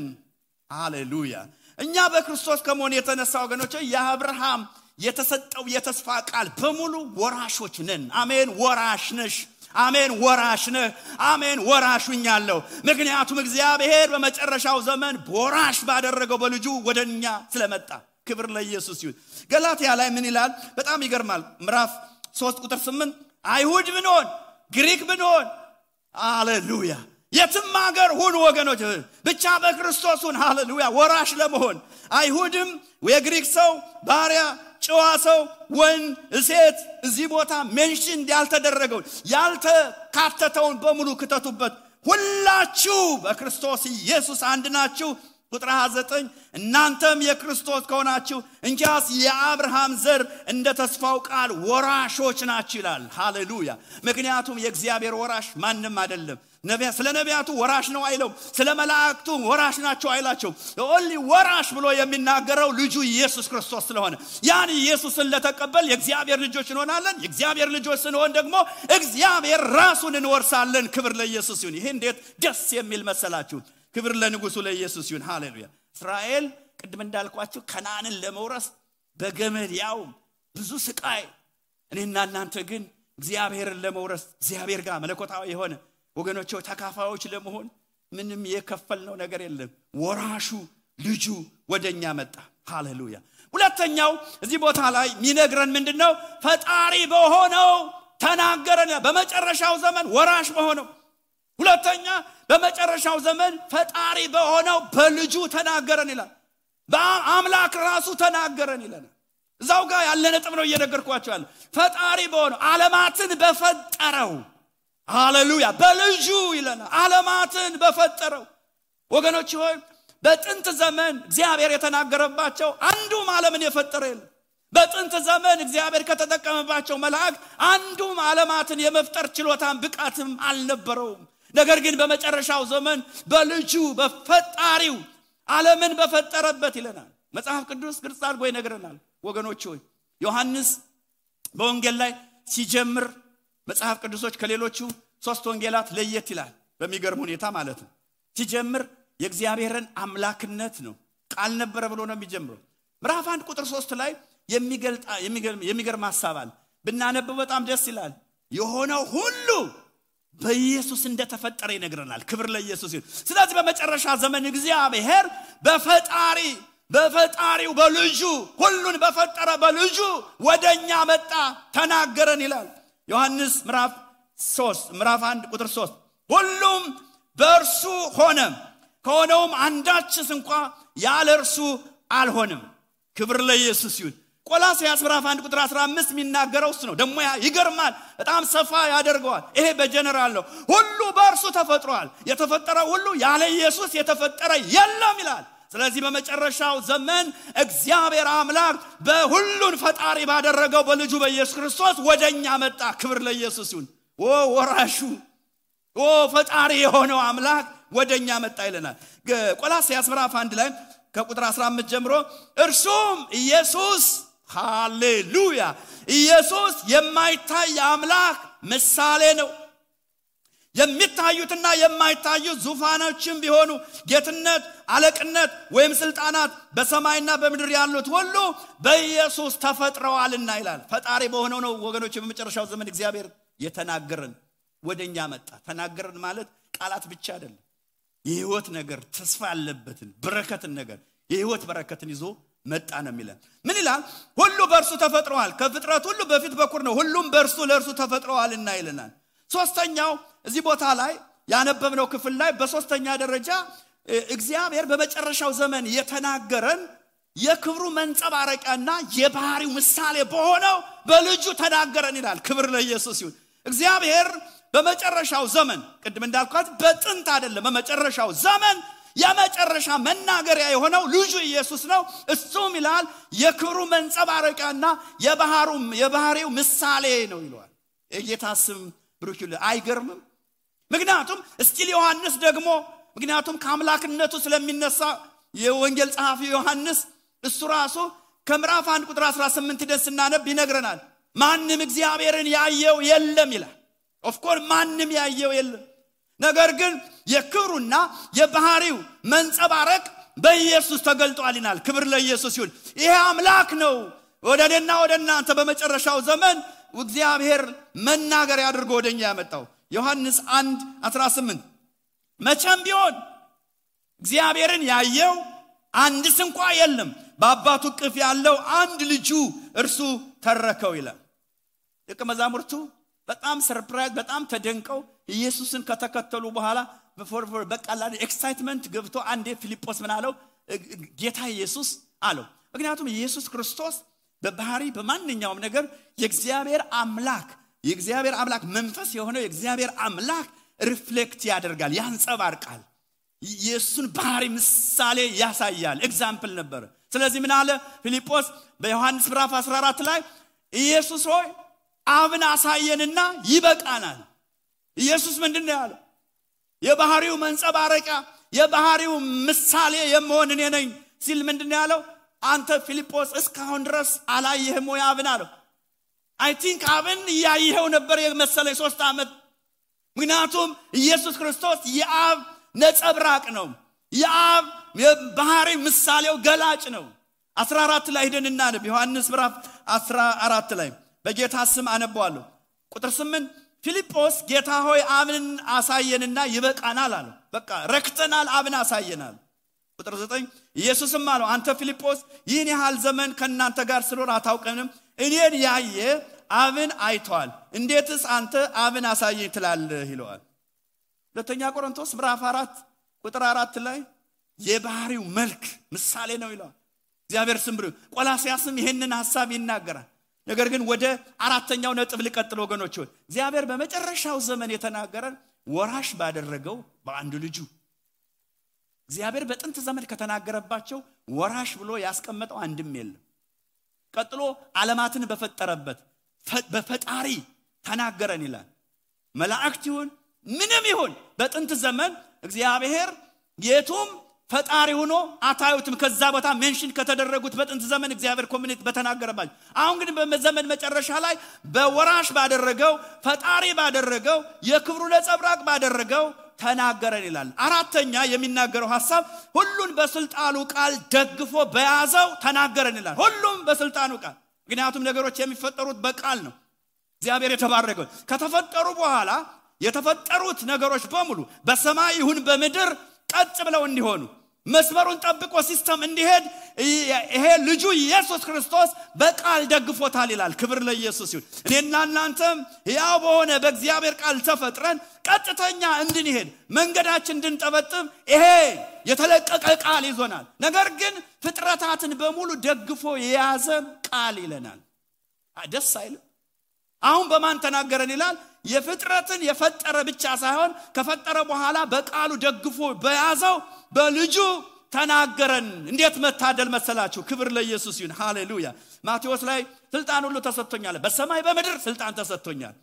ሃሌሉያ እኛ በክርስቶስ ከመሆን የተነሳ ወገኖች የአብርሃም የተሰጠው የተስፋ ቃል በሙሉ ወራሾች ነን አሜን ወራሽ ነሽ አሜን ወራሽ ነህ አሜን ወራሹኛለሁ ምክንያቱም እግዚአብሔር በመጨረሻው ዘመን ወራሽ ባደረገው በልጁ ወደኛ ስለመጣ ክብር ለኢየሱስ ይሁን ገላትያ ላይ ምን ይላል በጣም ይገርማል ምዕራፍ 3 ቁጥር 8 አይሁድ ብንሆን ግሪክ ብንሆን ሃሌሉያ የትም ሀገር ሁሉ ወገኖች ብቻ በክርስቶስ ሁን ሃሌሉያ ወራሽ ለመሆን አይሁድም የግሪክ ሰው ባሪያ ጨዋ ሰው ወንድ ሴት እዚህ ቦታ ሜንሽን ያልተደረገው ያልተካተተውን በሙሉ ከተቱበት ሁላችሁ በክርስቶስ ኢየሱስ አንድ ናችሁ ቁጥር 29 እናንተም የክርስቶስ ከሆናችሁ እንኪያስ የአብርሃም ዘር እንደ ተስፋው ቃል ወራሾች ናችሁ ይላል ሃሌሉያ ምክንያቱም የእግዚአብሔር ወራሽ ማንም አይደለም ነቢያት ስለ ነቢያቱ ወራሽ ነው አይለው ስለ መላእክቱ ወራሽ ናቸው አይላቸው ኦንሊ ወራሽ ብሎ የሚናገረው ልጁ ኢየሱስ ክርስቶስ ስለሆነ ያን ኢየሱስን ለተቀበል የእግዚአብሔር ልጆች እንሆናለን የእግዚአብሔር ልጆች ስንሆን ደግሞ እግዚአብሔር ራሱን እንወርሳለን ክብር ለኢየሱስ ይሁን ይሄ እንዴት ደስ የሚል መሰላችሁ ክብር ለንጉሱ ለኢየሱስ ይሁን ሃሌሉያ እስራኤል ቅድም እንዳልኳችሁ ከነዓንን ለመውረስ በገመድ ያው ብዙ ስቃይ እኔና እናንተ ግን እግዚአብሔርን ለመውረስ እግዚአብሔር ጋር መለኮታዊ የሆነ ወገኖች ተካፋዮች ለመሆን ምንም የከፈልነው ነገር የለም ወራሹ ልጁ ወደኛ መጣ ሃሌሉያ ሁለተኛው እዚህ ቦታ ላይ ሚነግረን ምንድነው ፈጣሪ በሆነው ተናገረን በመጨረሻው ዘመን ወራሽ በሆነው ሁለተኛ በመጨረሻው ዘመን ፈጣሪ በሆነው በልጁ ተናገረን ይላል በአምላክ ራሱ ተናገረን ይላል እዛው ጋር ያለ ነጥብ ነው እየነገርኳችሁ ያለ ፈጣሪ በሆነው ዓለማትን በፈጠረው ሃሌሉያ በልጁ ይለና ዓለማትን በፈጠረው ወገኖች ሆይ በጥንት ዘመን እግዚአብሔር የተናገረባቸው አንዱም ዓለምን የፈጠረ የለም በጥንት ዘመን እግዚአብሔር ከተጠቀመባቸው መላእክት አንዱም ዓለማትን የመፍጠር ችሎታም ብቃትም አልነበረውም ነገር ግን በመጨረሻው ዘመን በልጁ በፈጣሪው ዓለምን በፈጠረበት ይለናል መጽሐፍ ቅዱስ ግልጽ አድርጎ ይነግረናል ወገኖች ሆይ ዮሐንስ በወንጌል ላይ ሲጀምር መጽሐፍ ቅዱሶች ከሌሎቹ ሶስት ወንጌላት ለየት ይላል በሚገርም ሁኔታ ማለት ነው ሲጀምር የእግዚአብሔርን አምላክነት ነው ቃል ነበር ብሎ ነው የሚጀምረው ምዕራፍ 1 ቁጥር 3 ላይ የሚገርም ሐሳብ አለ ብናነበው በጣም ደስ ይላል የሆነው ሁሉ በኢየሱስ እንደተፈጠረ ይነግረናል ክብር ለኢየሱስ ይሁን ስለዚህ በመጨረሻ ዘመን እግዚአብሔር በፈጣሪው በልጁ ሁሉን በፈጠረ በልጁ ወደኛ መጣ ተናገረን ይላል ዮሐንስ ምዕራፍ 1 ቁጥር 3 ሁሉም በእርሱ ሆነ ከሆነውም አንዳችስ እንኳን ያለ እርሱ አልሆነም ክብር ለኢየሱስ ይሁን ቆላስይስ ምዕራፍ 1 ቁጥር 15 የሚናገረው እሱ ነው ደሞ ይገርማል በጣም ሰፋ ያደርገዋል ይሄ በጀነራል ነው ሁሉ በእርሱ ተፈጥሯል የተፈጠረው ሁሉ ያለ ኢየሱስ የተፈጠረ የለም ይላል ስለዚህ በመጨረሻው ዘመን እግዚአብሔር አምላክ በሁሉን ፈጣሪ ባደረገው በልጁ በኢየሱስ ክርስቶስ ወደኛ መጣ ክብር ለኢየሱስ ይሁን ወራሹ ፈጣሪ የሆነው አምላክ ወደኛ መጣ ይለናል ቆላስይስ ምዕራፍ 1 ላይ ከቁጥር 15 ጀምሮ እርሱም ኢየሱስ ሃሌሉያ ኢየሱስ የማይታይ አምላክ ምሳሌ ነው የሚታዩትና የማይታዩት ዙፋኖችም ቢሆኑ ጌትነት አለቅነት ወይም ስልጣናት በሰማይና በምድር ያሉት ሁሉ በኢየሱስ ተፈጥረዋልና ይላል ፈጣሪ በሆነው ነው ወገኖች በመጨረሻው ዘመን እግዚአብሔር የተናገረን ወደኛ መጣ። ተናገረን ማለት ቃላት ብቻ አይደለም፣ የህይወት ነገር ተስፋ ያለበትን በረከትን ነገር የህይወት በረከትን ይዞ መጣ ነው የሚለን። ምን ይላል? ሁሉ በእርሱ ተፈጥሯል፣ ከፍጥረት ሁሉ በፊት በኩር ነው፣ ሁሉም በእርሱ ለእርሱ ተፈጥሯልና ይለናል። ሶስተኛው እዚህ ቦታ ላይ ያነበብነው ክፍል ላይ በሶስተኛ ደረጃ እግዚአብሔር በመጨረሻው ዘመን የተናገረን የክብሩ መንጸባረቂያና የባህሪው ምሳሌ በሆነው በልጁ ተናገረን ይላል። ክብር ለኢየሱስ ይሁን። እግዚአብሔር በመጨረሻው ዘመን ቅድም እንዳልኳት በጥንት አይደለም፣ በመጨረሻው ዘመን የመጨረሻ መናገሪያ የሆነው ልጁ ኢየሱስ ነው። እሱም ይላል የክብሩ መንጸባረቂያና የባህሪው ምሳሌ ነው ይላል። የጌታ ስም ብሩክ ይሁን። አይገርምም? ምክንያቱም እስቲል ዮሐንስ ደግሞ ምክንያቱም ከአምላክነቱ ስለሚነሳ የወንጌል ጸሐፊ ዮሐንስ እሱ ራሱ ከምዕራፍ 1 ቁጥር 18 ደስ እናነብ ይነግረናል። ማንም እግዚአብሔርን ያየው የለም ይላል። ኦፍ ኮርስ ማንም ያየው የለም፣ ነገር ግን የክብሩና የባህሪው መንጸባረቅ በኢየሱስ ተገልጧል ይላል። ክብር ለኢየሱስ ይሁን። ይሄ አምላክ ነው ወደና ወደናንተ በመጨረሻው ዘመን እግዚአብሔር መናገር ያድርጎ ወደኛ ያመጣው። ዮሐንስ 1:18 መቼም ቢሆን እግዚአብሔርን ያየው አንድስ እንኳን የለም፣ በአባቱ እቅፍ ያለው አንድ ልጁ እርሱ ተረከው ይላል። ደቀ መዛሙርቱ በጣም ሰርፕራይዝ በጣም ተደንቀው ኢየሱስን ከተከተሉ በኋላ በቃላል ኤክሳይትመንት ገብቶ አንዴ ፊልጶስ ምን አለው? ጌታ ኢየሱስ አለው። ምክንያቱም ኢየሱስ ክርስቶስ በባህሪ በማንኛውም ነገር የእግዚአብሔር አምላክ መንፈስ የሆነው የእግዚአብሔር አምላክ ሪፍሌክት ያደርጋል፣ ያንጸባርቃል፣ ኢየሱስን ባህሪ ምሳሌ ያሳያል። ኤግዛምፕል ነበር። ስለዚህ ምን አለ ፊልጶስ በዮሐንስ ምዕራፍ 14 ላይ ኢየሱስ ሆይ አብን አሳየንና ይበቃናል። ኢየሱስ ምንድነው ያለው? የባህሪው መንጸባረቂያ የባህሪው ምሳሌ የምሆን እኔ ነኝ ሲል ምንድነው ያለው? አንተ ፊልጶስ እስካሁን ድረስ አላየህም ወይ አብን አለው። አይ ቲንክ አብን ያየው ነበር የመሰለኝ 3 ዓመት። ምክንያቱም ኢየሱስ ክርስቶስ የአብ ነጸብራቅ ነው፣ የአብ የባህሪ ምሳሌው ገላጭ ነው። 14 ላይ ሄደን እናነብ። ዮሐንስ ምዕራፍ 14 ላይ በጌታ ስም አነባዋለሁ። ቁጥር 8 ፊልጶስ ጌታ ሆይ አብን አሳየንና ይበቃናል አለው። በቃ ረክተናል፣ አብን አሳየናል። ቁጥር 9 ኢየሱስም አለው አንተ ፊልጶስ ይህን ያህል ዘመን ከናንተ ጋር ስለሆነ አታውቀንም፣ እኔን ያየ አብን አይቷል፣ እንዴትስ አንተ አብን አሳየኝ ትላለህ ይለዋል። ሁለተኛ ቆሮንቶስ ምዕራፍ 4 ቁጥር 4 ላይ የባህሪው መልክ ምሳሌ ነው ይላል። እግዚአብሔር ስም ብሩ። ቆላስያስም ይሄንን ሐሳብ ይናገራል። ነገር ግን ወደ አራተኛው ነጥብ ልቀጥል ወገኖች። እግዚአብሔር በመጨረሻው ዘመን የተናገረን ወራሽ ባደረገው በአንድ ልጁ። እግዚአብሔር በጥንት ዘመን ከተናገረባቸው ወራሽ ብሎ ያስቀመጠው አንድም የለም። ቀጥሎ ዓለማትን በፈጠረበት በፈጣሪ ተናገረን ይላል። መላእክት ይሁን ምንም ይሁን በጥንት ዘመን እግዚአብሔር የቱም ፈጣሪ ሆኖ አታዩትም። ከዛ ቦታ ሜንሽን ከተደረጉት በጥንት ዘመን እግዚአብሔር ኮሚኒቲ በተናገረባቸው። አሁን ግን በዘመን መጨረሻ ላይ በወራሽ ባደረገው ፈጣሪ ባደረገው የክብሩ ነጸብራቅ ባደረገው ተናገረን ይላል። አራተኛ የሚናገረው ሐሳብ ሁሉን በስልጣኑ ቃል ደግፎ በያዘው ተናገረን ይላል። ሁሉም በስልጣኑ ቃል። ምክንያቱም ነገሮች የሚፈጠሩት በቃል ነው። እግዚአብሔር የተባረከው ከተፈጠሩ በኋላ የተፈጠሩት ነገሮች በሙሉ በሰማይ ይሁን በምድር ቀጥ ብለው እንዲሆኑ መስመሩን ጠብቆ ሲስተም እንዲሄድ ይሄ ልጁ ኢየሱስ ክርስቶስ በቃል ደግፎታል ይላል። ክብር ለኢየሱስ ይሁን። እኔና እናንተም ያው በሆነ በእግዚአብሔር ቃል ተፈጥረን ቀጥተኛ እንድንሄድ መንገዳችን እንድንጠበጥም ይሄ የተለቀቀ ቃል ይዞናል። ነገር ግን ፍጥረታትን በሙሉ ደግፎ የያዘ ቃል ይለናል። ደስ አይልም? አሁን በማን ተናገረን ይላል? የፍጥረትን የፈጠረ ብቻ ሳይሆን ከፈጠረ በኋላ በቃሉ ደግፎ በያዘው በልጁ ተናገረን። እንዴት መታደል መሰላችሁ! ክብር ለኢየሱስ ይሁን። ሃሌሉያ። ማቴዎስ ላይ ስልጣን ሁሉ ተሰጥቶኛል፣ በሰማይ በምድር ስልጣን ተሰጥቶኛል።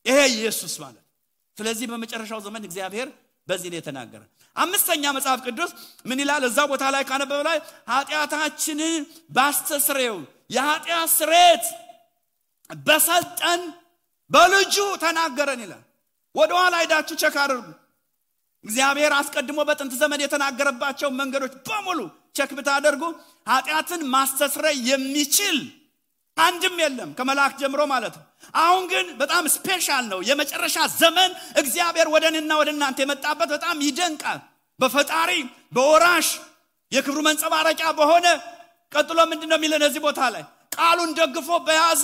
ይሄ ኢየሱስ ማለት። ስለዚህ በመጨረሻው ዘመን እግዚአብሔር በዚህ ነው የተናገረን። አምስተኛ መጽሐፍ ቅዱስ ምን ይላል? እዛ ቦታ ላይ ካነበበ ላይ ኃጢአታችንን ባስተስረው የኃጢአት ስርየት በሰጠን በልጁ ተናገረን ይላል። ወደ ኋላ ሄዳችሁ ቸክ አድርጉ። እግዚአብሔር አስቀድሞ በጥንት ዘመን የተናገረባቸው መንገዶች በሙሉ ቸክ ብታደርጉ ኃጢአትን ማስተስረይ የሚችል አንድም የለም ከመላእክ ጀምሮ ማለት ነው። አሁን ግን በጣም ስፔሻል ነው። የመጨረሻ ዘመን እግዚአብሔር ወደኔና ወደናንተ የመጣበት በጣም ይደንቃል። በፈጣሪ በወራሽ የክብሩ መንጸባረቂያ በሆነ ቀጥሎ ምንድነው የሚለን እዚህ ቦታ ላይ ቃሉን ደግፎ በያዘ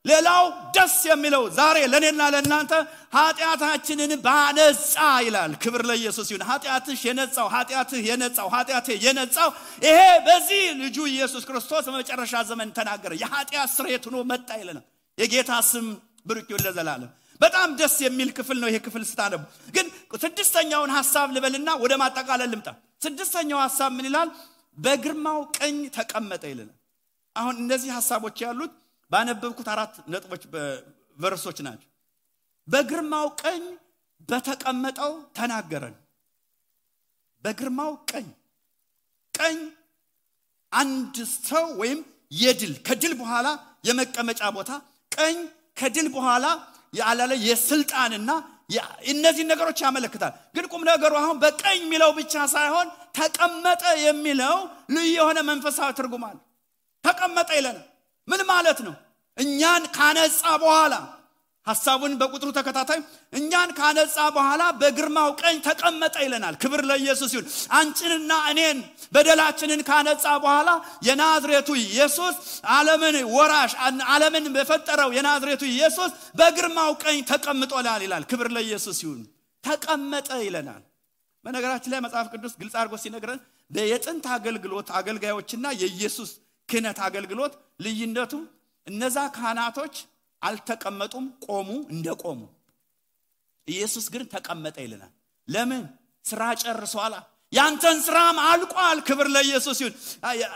ሌላው ደስ የሚለው ዛሬ ለኔና ለናንተ ኃጢአታችንን ባነጻ ይላል። ክብር ለኢየሱስ ይሁን። ኃጢአትሽ የነጻው ኃጢአትህ የነጻው ኃጢአትህ የነጻው ይሄ በዚህ ልጁ ኢየሱስ ክርስቶስ በመጨረሻ ዘመን ተናገረ። የኃጢአት ስርየት ሆኖ መጣ ይለናል። የጌታ ስም ብሩክ ይሁን ለዘላለም። በጣም ደስ የሚል ክፍል ነው ይሄ ክፍል ስታነቡ። ግን ስድስተኛውን ሐሳብ ልበልና ወደ ማጠቃለል ልምጣ። ስድስተኛው ሐሳብ ምን ይላል? በግርማው ቀኝ ተቀመጠ ይለናል። አሁን እነዚህ ሐሳቦች ያሉት ባነበብኩት 4 ነጥቦች በቨርሶች ናቸው። በግርማው ቀኝ በተቀመጠው ተናገረን። በግርማው ቀኝ አንድ ሰው ወይም የድል ከድል በኋላ የመቀመጫ ቦታ ቀኝ ከድል በኋላ ያላለ የስልጣንና እነዚህ ነገሮች ያመለክታል። ግን ቁም ነገሩ አሁን በቀኝ የሚለው ብቻ ሳይሆን ተቀመጠ የሚለው ልዩ የሆነ መንፈሳዊ ትርጉም አለ። ተቀመጠ ይለናል። ምን ማለት ነው? እኛን ካነጻ በኋላ ሐሳቡን በቁጥሩ ተከታታይ እኛን ካነጻ በኋላ በግርማው ቀኝ ተቀመጠ ይለናል። ክብር ለኢየሱስ ይሁን። አንቺንና እኔን በደላችንን ካነጻ በኋላ የናዝሬቱ ኢየሱስ ዓለምን ወራሽ ዓለምን በፈጠረው የናዝሬቱ ኢየሱስ በግርማው ቀኝ ተቀምጧል ይላል። ክብር ለኢየሱስ ይሁን። ተቀመጠ ይለናል። በነገራችን ላይ መጽሐፍ ቅዱስ ግልጽ አድርጎ ሲነግረን በየጥንት አገልግሎት አገልጋዮችና የኢየሱስ ክህነት አገልግሎት ልዩነቱ እነዛ ካህናቶች አልተቀመጡም፣ ቆሙ እንደቆሙ። ኢየሱስ ግን ተቀመጠ ይለናል። ለምን? ስራ ጨርሷል። ያንተን ስራም አልቋል። ክብር ለኢየሱስ ይሁን።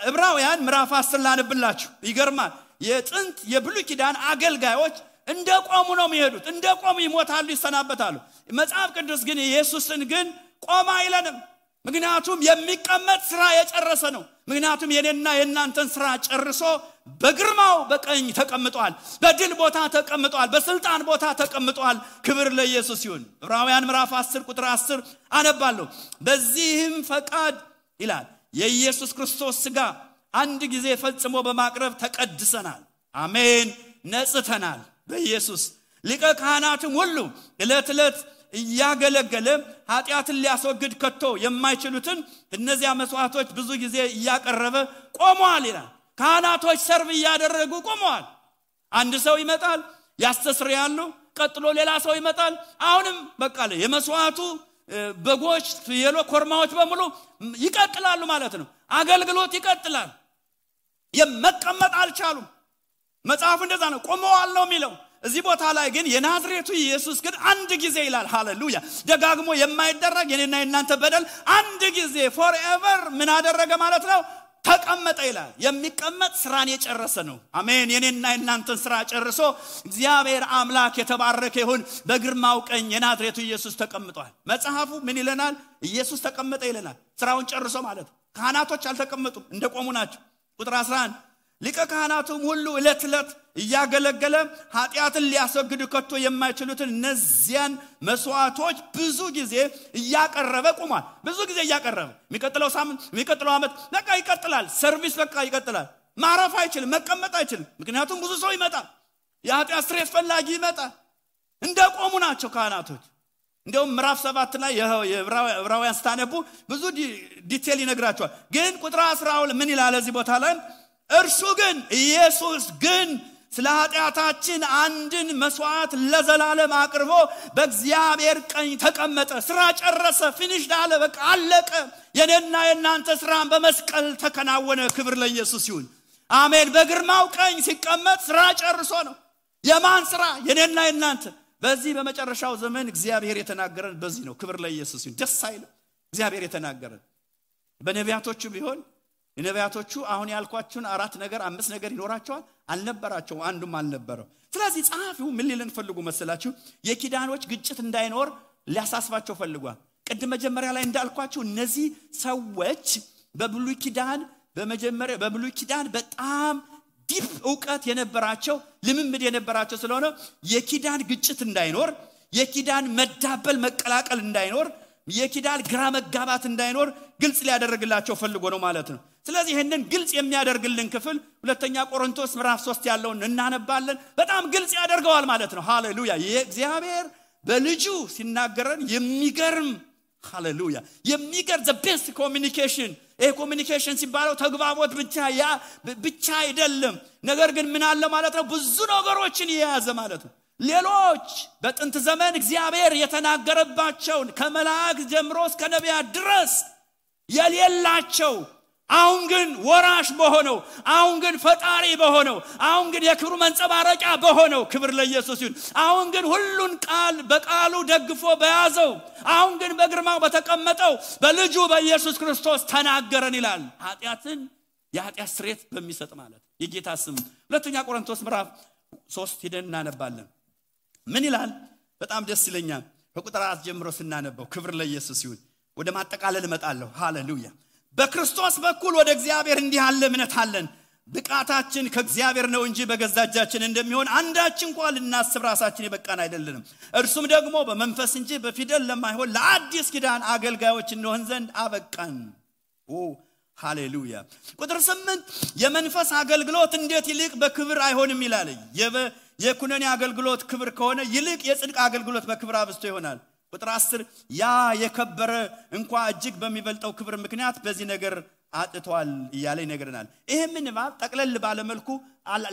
ዕብራውያን ምዕራፍ 10 ላነብላችሁ። ይገርማል። የጥንት የብሉይ ኪዳን አገልጋዮች እንደቆሙ ነው የሚሄዱት። እንደቆሙ ይሞታሉ፣ ይሰናበታሉ። መጽሐፍ ቅዱስ ግን ኢየሱስን ግን ቆማ አይለንም። ምክንያቱም የሚቀመጥ ስራ የጨረሰ ነው። ምክንያቱም የኔና የናንተን ስራ ጨርሶ በግርማው በቀኝ ተቀምጧል። በድል ቦታ ተቀምጧል። በስልጣን ቦታ ተቀምጧል። ክብር ለኢየሱስ ይሁን። ዕብራውያን ምዕራፍ 10 ቁጥር 10 አነባለሁ። በዚህም ፈቃድ ይላል የኢየሱስ ክርስቶስ ሥጋ አንድ ጊዜ ፈጽሞ በማቅረብ ተቀድሰናል። አሜን። ነጽተናል። በኢየሱስ ሊቀ ካህናትም ሁሉ ዕለት ዕለት እያገለገለ ኃጢአትን ሊያስወግድ ከቶ የማይችሉትን እነዚያ መስዋዕቶች ብዙ ጊዜ እያቀረበ ቆመዋል ይላል። ካህናቶች ሰርቭ እያደረጉ ቆመዋል። አንድ ሰው ይመጣል፣ ያስተስርያሉ። ቀጥሎ ሌላ ሰው ይመጣል። አሁንም በቃ የመስዋዕቱ በጎች፣ ፍየሎች፣ ኮርማዎች በሙሉ ይቀጥላሉ ማለት ነው። አገልግሎት ይቀጥላል። የመቀመጥ አልቻሉም። መጽሐፉ እንደዛ ነው። ቆመዋል ነው የሚለው። እዚህ ቦታ ላይ ግን የናዝሬቱ ኢየሱስ ግን አንድ ጊዜ ይላል። ሃሌሉያ። ደጋግሞ የማይደረግ የኔና የናንተ በደል አንድ ጊዜ forever ምን አደረገ ማለት ነው? ተቀመጠ ይላል። የሚቀመጥ ስራን የጨረሰ ነው። አሜን። የኔና የናንተን ስራ ጨርሶ እግዚአብሔር አምላክ የተባረከ ይሁን። በግርማው ቀኝ የናዝሬቱ ኢየሱስ ተቀምጧል። መጽሐፉ ምን ይለናል? ኢየሱስ ተቀመጠ ይለናል። ስራውን ጨርሶ ማለት ነው። ካህናቶች አልተቀመጡም፣ እንደቆሙ ናቸው። ቁጥር 11 ሊቀ ካህናቱም ሁሉ ዕለት ዕለት እያገለገለ ኃጢአትን ሊያስወግዱ ከቶ የማይችሉትን እነዚያን መስዋዕቶች ብዙ ጊዜ እያቀረበ ቆሟል። ብዙ ጊዜ እያቀረበ የሚቀጥለው ሳምንት የሚቀጥለው ዓመት በቃ ይቀጥላል። ሰርቪስ በቃ ይቀጥላል። ማረፍ አይችልም፣ መቀመጥ አይችልም። ምክንያቱም ብዙ ሰው ይመጣል። የኃጢአት ስርየት ፈላጊ ይመጣል። እንደቆሙ ናቸው ካህናቶች። እንደውም ምዕራፍ 7 ላይ የዕብራውያን ስታነቡ ብዙ ዲቴል ይነግራቸዋል። ግን ቁጥር 12 ምን ይላል እዚህ ቦታ ላይ? እርሱ ግን ኢየሱስ ግን ስለ ኃጢአታችን አንድን መስዋዕት ለዘላለም አቅርቦ በእግዚአብሔር ቀኝ ተቀመጠ። ስራ ጨረሰ። ፊኒሽድ አለ። በቃ አለቀ። የኔና የናንተ ስራን በመስቀል ተከናወነ። ክብር ለኢየሱስ ይሁን። አሜን። በግርማው ቀኝ ሲቀመጥ ስራ ጨርሶ ነው። የማን ስራ? የኔና የናንተ። በዚህ በመጨረሻው ዘመን እግዚአብሔር የተናገረን በዚህ ነው። ክብር ለኢየሱስ ይሁን። ደስ አይልም? እግዚአብሔር የተናገረን በነቢያቶቹ ቢሆን የነቢያቶቹ አሁን ያልኳችሁን 4 ነገር 5 ነገር ይኖራቸዋል? አልነበራቸው። አንዱም አልነበረው። ስለዚህ ጸሐፊው ምን ሊለን ፈልጉ መሰላችሁ? የኪዳኖች ግጭት እንዳይኖር ሊያሳስባቸው ፈልጓል። ቅድም መጀመሪያ ላይ እንዳልኳችሁ እነዚህ ሰዎች በብሉይ ኪዳን በጣም ዲፕ ዕውቀት የነበራቸው ልምምድ የነበራቸው ስለሆነ የኪዳን ግጭት እንዳይኖር፣ የኪዳን መዳበል መቀላቀል እንዳይኖር የኪዳን ግራ መጋባት እንዳይኖር ግልጽ ሊያደርግላቸው ፈልጎ ነው ማለት ነው። ስለዚህ ይሄንን ግልጽ የሚያደርግልን ክፍል ሁለተኛ ቆሮንቶስ ምዕራፍ 3 ያለውን እናነባለን። በጣም ግልጽ ያደርገዋል ማለት ነው። ሃሌሉያ! የእግዚአብሔር በልጁ ሲናገረን የሚገርም ሃሌሉያ የሚገርም the best communication ኮሚኒኬሽን ሲባለው ተግባቦት ብቻ አይደለም። ነገር ግን ምን አለ ማለት ነው? ብዙ ነገሮችን የያዘ ማለት ነው። ሌሎች በጥንት ዘመን እግዚአብሔር የተናገረባቸው ከመላእክት ጀምሮ እስከ ነቢያት ድረስ የሌላቸው አሁን ግን ወራሽ በሆነው አሁን ግን ፈጣሪ በሆነው አሁን ግን የክብሩ መንጸባረቂያ በሆነው ክብር ለኢየሱስ ይሁን። አሁን ግን ሁሉን ቃል በቃሉ ደግፎ በያዘው አሁን ግን በግርማው በተቀመጠው በልጁ በኢየሱስ ክርስቶስ ተናገረን ይላል። የኃጢአት ስርየት በሚሰጥ ማለት የጌታ ስም ሁለተኛ ቆሮንቶስ ምዕራፍ 3 ሄደን እናነባለን። ምን ይላል? በጣም ደስ ይለኛል። ከቁጥር 4 ጀምሮ ስናነበው ክብር ለኢየሱስ ይሁን። ወደ ማጠቃለል እመጣለሁ። ሃሌሉያ! በክርስቶስ በኩል ወደ እግዚአብሔር እንዲህ ያለ እምነት አለን። ብቃታችን ከእግዚአብሔር ነው እንጂ በገዛ እጃችን እንደሚሆን አንዳች እንኳን ልናስብ ራሳችን የበቃን አይደለንም። እርሱም ደግሞ በመንፈስ እንጂ በፊደል ለማይሆን ለአዲስ ኪዳን አገልጋዮች እንሆን ዘንድ አበቃን። ሃሌሉያ! ቁጥር 8 የመንፈስ አገልግሎት እንዴት ይልቅ በክብር አይሆንም ይላል። የኩነኔ አገልግሎት ክብር ከሆነ ይልቅ የጽድቅ አገልግሎት በክብር አብዝቶ ይሆናል። ቁጥር 10 ያ የከበረ እንኳን እጅግ በሚበልጠው ክብር ምክንያት በዚህ ነገር አጥቷል እያለ ይነግረናል። ይሄንን ጠቅለል ባለ መልኩ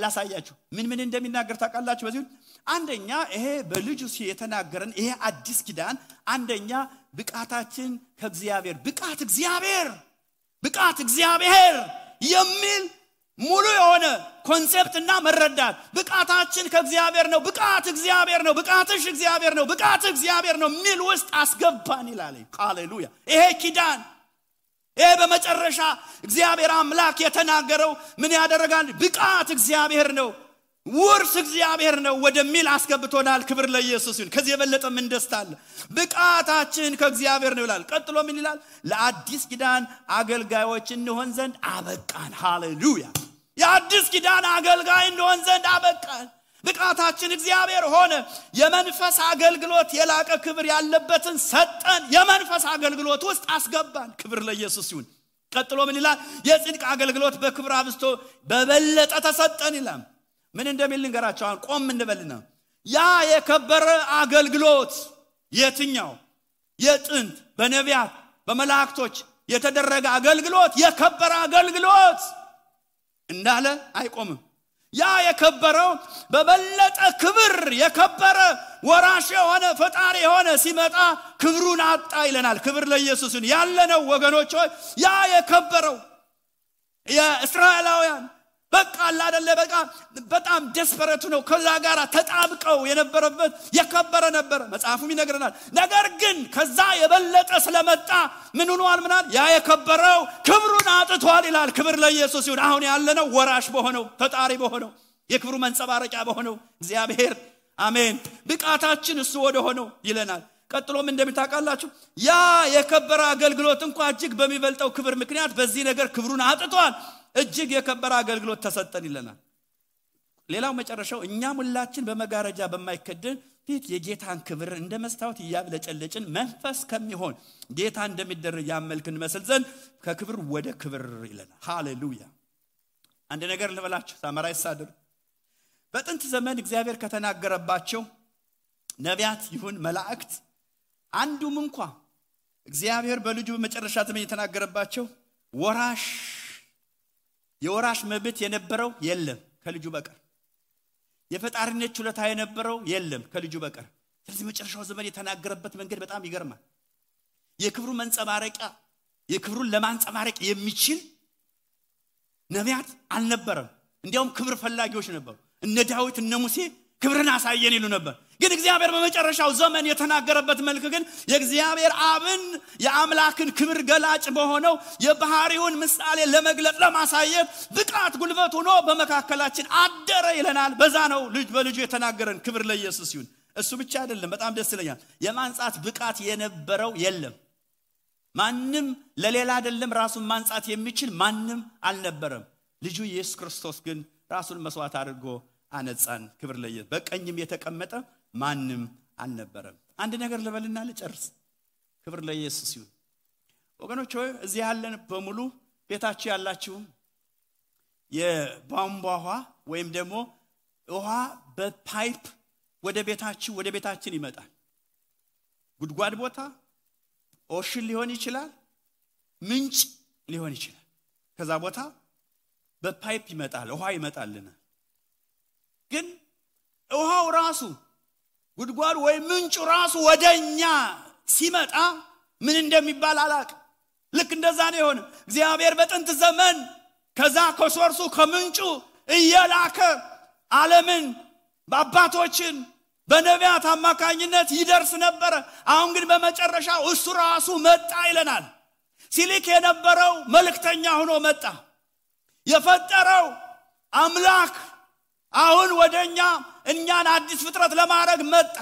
ላሳያችሁ ምን እንደሚናገር ታውቃላችሁ? በዚህ አንደኛ ይሄ በልጁ የተናገረን ይሄ አዲስ ኪዳን አንደኛ ብቃታችን ከእግዚአብሔር ብቃት እግዚአብሔር የሚል ሙሉ የሆነ ኮንሴፕትና መረዳት ብቃታችን ከእግዚአብሔር ነው፣ ብቃት እግዚአብሔር ነው፣ ብቃትሽ እግዚአብሔር ነው፣ ብቃት እግዚአብሔር ነው ሚል ውስጥ አስገባን ይላል። ሃሌሉያ! ይሄ ኪዳን ይሄ በመጨረሻ እግዚአብሔር አምላክ የተናገረው ምን ያደርጋል? ብቃት እግዚአብሔር ነው፣ ውርስ እግዚአብሔር ነው ወደሚል አስገብቶናል። ክብር ለኢየሱስ ይሁን። ከዚህ የበለጠ ምን ደስታ አለ? ብቃታችን ከእግዚአብሔር ነው ይላል። ቀጥሎ ምን ይላል? ለአዲስ ኪዳን አገልጋዮች እንሆን ዘንድ አበቃን። ሃሌሉያ! የአዲስ ኪዳን አገልጋይ እንሆን ዘንድ አበቃን። ብቃታችን እግዚአብሔር ሆነ። የመንፈስ አገልግሎት የላቀ ክብር ያለበትን ሰጠን። የመንፈስ አገልግሎት ውስጥ አስገባን። ክብር ለኢየሱስ ይሁን። ቀጥሎ ምን ይላል? የጽድቅ አገልግሎት በክብር አብዝቶ በበለጠ ተሰጠን ይላል። ምን እንደሚል ልንገራችሁ። አሁን ቆም እንበልና ያ የከበረ አገልግሎት የትኛው? የጥንት በነቢያት በመላእክቶች የተደረገ አገልግሎት የከበረ አገልግሎት እንዳለ አይቆምም። ያ የከበረው በበለጠ ክብር የከበረ ወራሽ የሆነ ፈጣሪ የሆነ ሲመጣ ክብሩን አጣ ይለናል። ክብር ለኢየሱስ ይሁን። ያለነው ወገኖች ሆይ ያ የከበረው የእስራኤላውያን በቃ አይደለ በቃ በጣም ደስፐረቱ ነው። ከዛ ጋር ተጣብቀው የነበረበት የከበረ ነበር መጽሐፉም ይነግረናል። ነገር ግን ከዛ የበለጠ ስለመጣ ምን ሆኗል? ምናል ያ የከበረው ክብሩን አጥቷል ይላል። ክብር ለኢየሱስ ይሁን። አሁን ያለነው ወራሽ በሆነው ፈጣሪ በሆነው የክብሩ መንጸባረቂያ በሆነው እግዚአብሔር አሜን ብቃታችን እሱ ወደ ሆነው ይለናል። ቀጥሎም እንደምታውቃላችሁ ያ የከበረ አገልግሎት እንኳን እጅግ በሚበልጠው ክብር ምክንያት በዚህ ነገር ክብሩን አጥቷል። እጅግ የከበረ አገልግሎት ተሰጠን ይለናል። ሌላው መጨረሻው እኛም ሁላችን በመጋረጃ በማይከደን ፊት የጌታን ክብር እንደ መስታወት ያብለጨለጭን መንፈስ ከሚሆን ጌታ እንደሚደረግ ያመልክን መስል ዘንድ ከክብር ወደ ክብር ይለናል። ሃሌሉያ! አንድ ነገር ልበላችሁ ሳመራይስ አድርጉ። በጥንት ዘመን እግዚአብሔር ከተናገረባቸው ነቢያት ይሁን መላእክት አንዱም እንኳን እግዚአብሔር በልጁ በመጨረሻ ዘመን የተናገረባቸው የወራሽ መብት የነበረው የለም ከልጁ በቀር። የፈጣሪነት ችሎታ የነበረው የለም ከልጁ በቀር። ስለዚህ መጨረሻው ዘመን የተናገረበት መንገድ በጣም ይገርማል። የክብሩ መንጸባረቂያ የክብሩን ለማንጸባረቅ የሚችል ነቢያት አልነበረም። እንዲያውም ክብር ፈላጊዎች ነበሩ። እነ ዳዊት እነ ሙሴ ክብርን አሳየን ይሉ ነበር። ግን እግዚአብሔር በመጨረሻው ዘመን የተናገረበት መልኩ ግን የእግዚአብሔር አብን የአምላክን ክብር ገላጭ በሆነው የባህሪውን ምሳሌ ለመግለጽ ለማሳየት ብቃት ጉልበት ሆኖ በመካከላችን አደረ ይለናል። በዛ ነው ልጅ በልጁ የተናገረን። ክብር ለኢየሱስ ይሁን። እሱ ብቻ አይደለም፣ በጣም ደስ ይለኛል። የማንጻት ብቃት የነበረው የለም። ማንም ለሌላ አይደለም ራሱን ማንጻት የሚችል ማንም አልነበረም። ልጁ ኢየሱስ ክርስቶስ ግን ራሱን መስዋዕት አድርጎ አነጻን። ክብር ለኢየሱስ። በቀኝም የተቀመጠ ማንም አልነበረም። አንድ ነገር ልበልና ልጨርስ። ክብር ለኢየሱስ ይሁን። ወገኖች ሆይ እዚህ ያለን በሙሉ ቤታችሁ ያላችሁ የቧንቧ ውሃ ወይም ደግሞ ውሃ በፓይፕ ወደ ቤታችን ይመጣል። ጉድጓድ ቦታ ኦሽን ሊሆን ይችላል፣ ምንጭ ሊሆን ይችላል። ከዛ ቦታ በፓይፕ ይመጣል፣ ውሃ ይመጣልና ግን ውሃው ራሱ ጉድጓድ ወይ ምንጩ ራሱ ወደኛ ሲመጣ ምን እንደሚባል አላውቅም። ልክ እንደዛ ነው የሆነ። እግዚአብሔር በጥንት ዘመን ከዛ ከሶርሱ ከምንጩ እየላከ ዓለምን በአባቶችን በነቢያት አማካኝነት ይደርስ ነበር። አሁን ግን በመጨረሻው እሱ ራሱ መጣ ይለናል። ሲልክ የነበረው መልእክተኛ ሆኖ መጣ። የፈጠረው አምላክ አሁን ወደኛ እኛን አዲስ ፍጥረት ለማድረግ መጣ።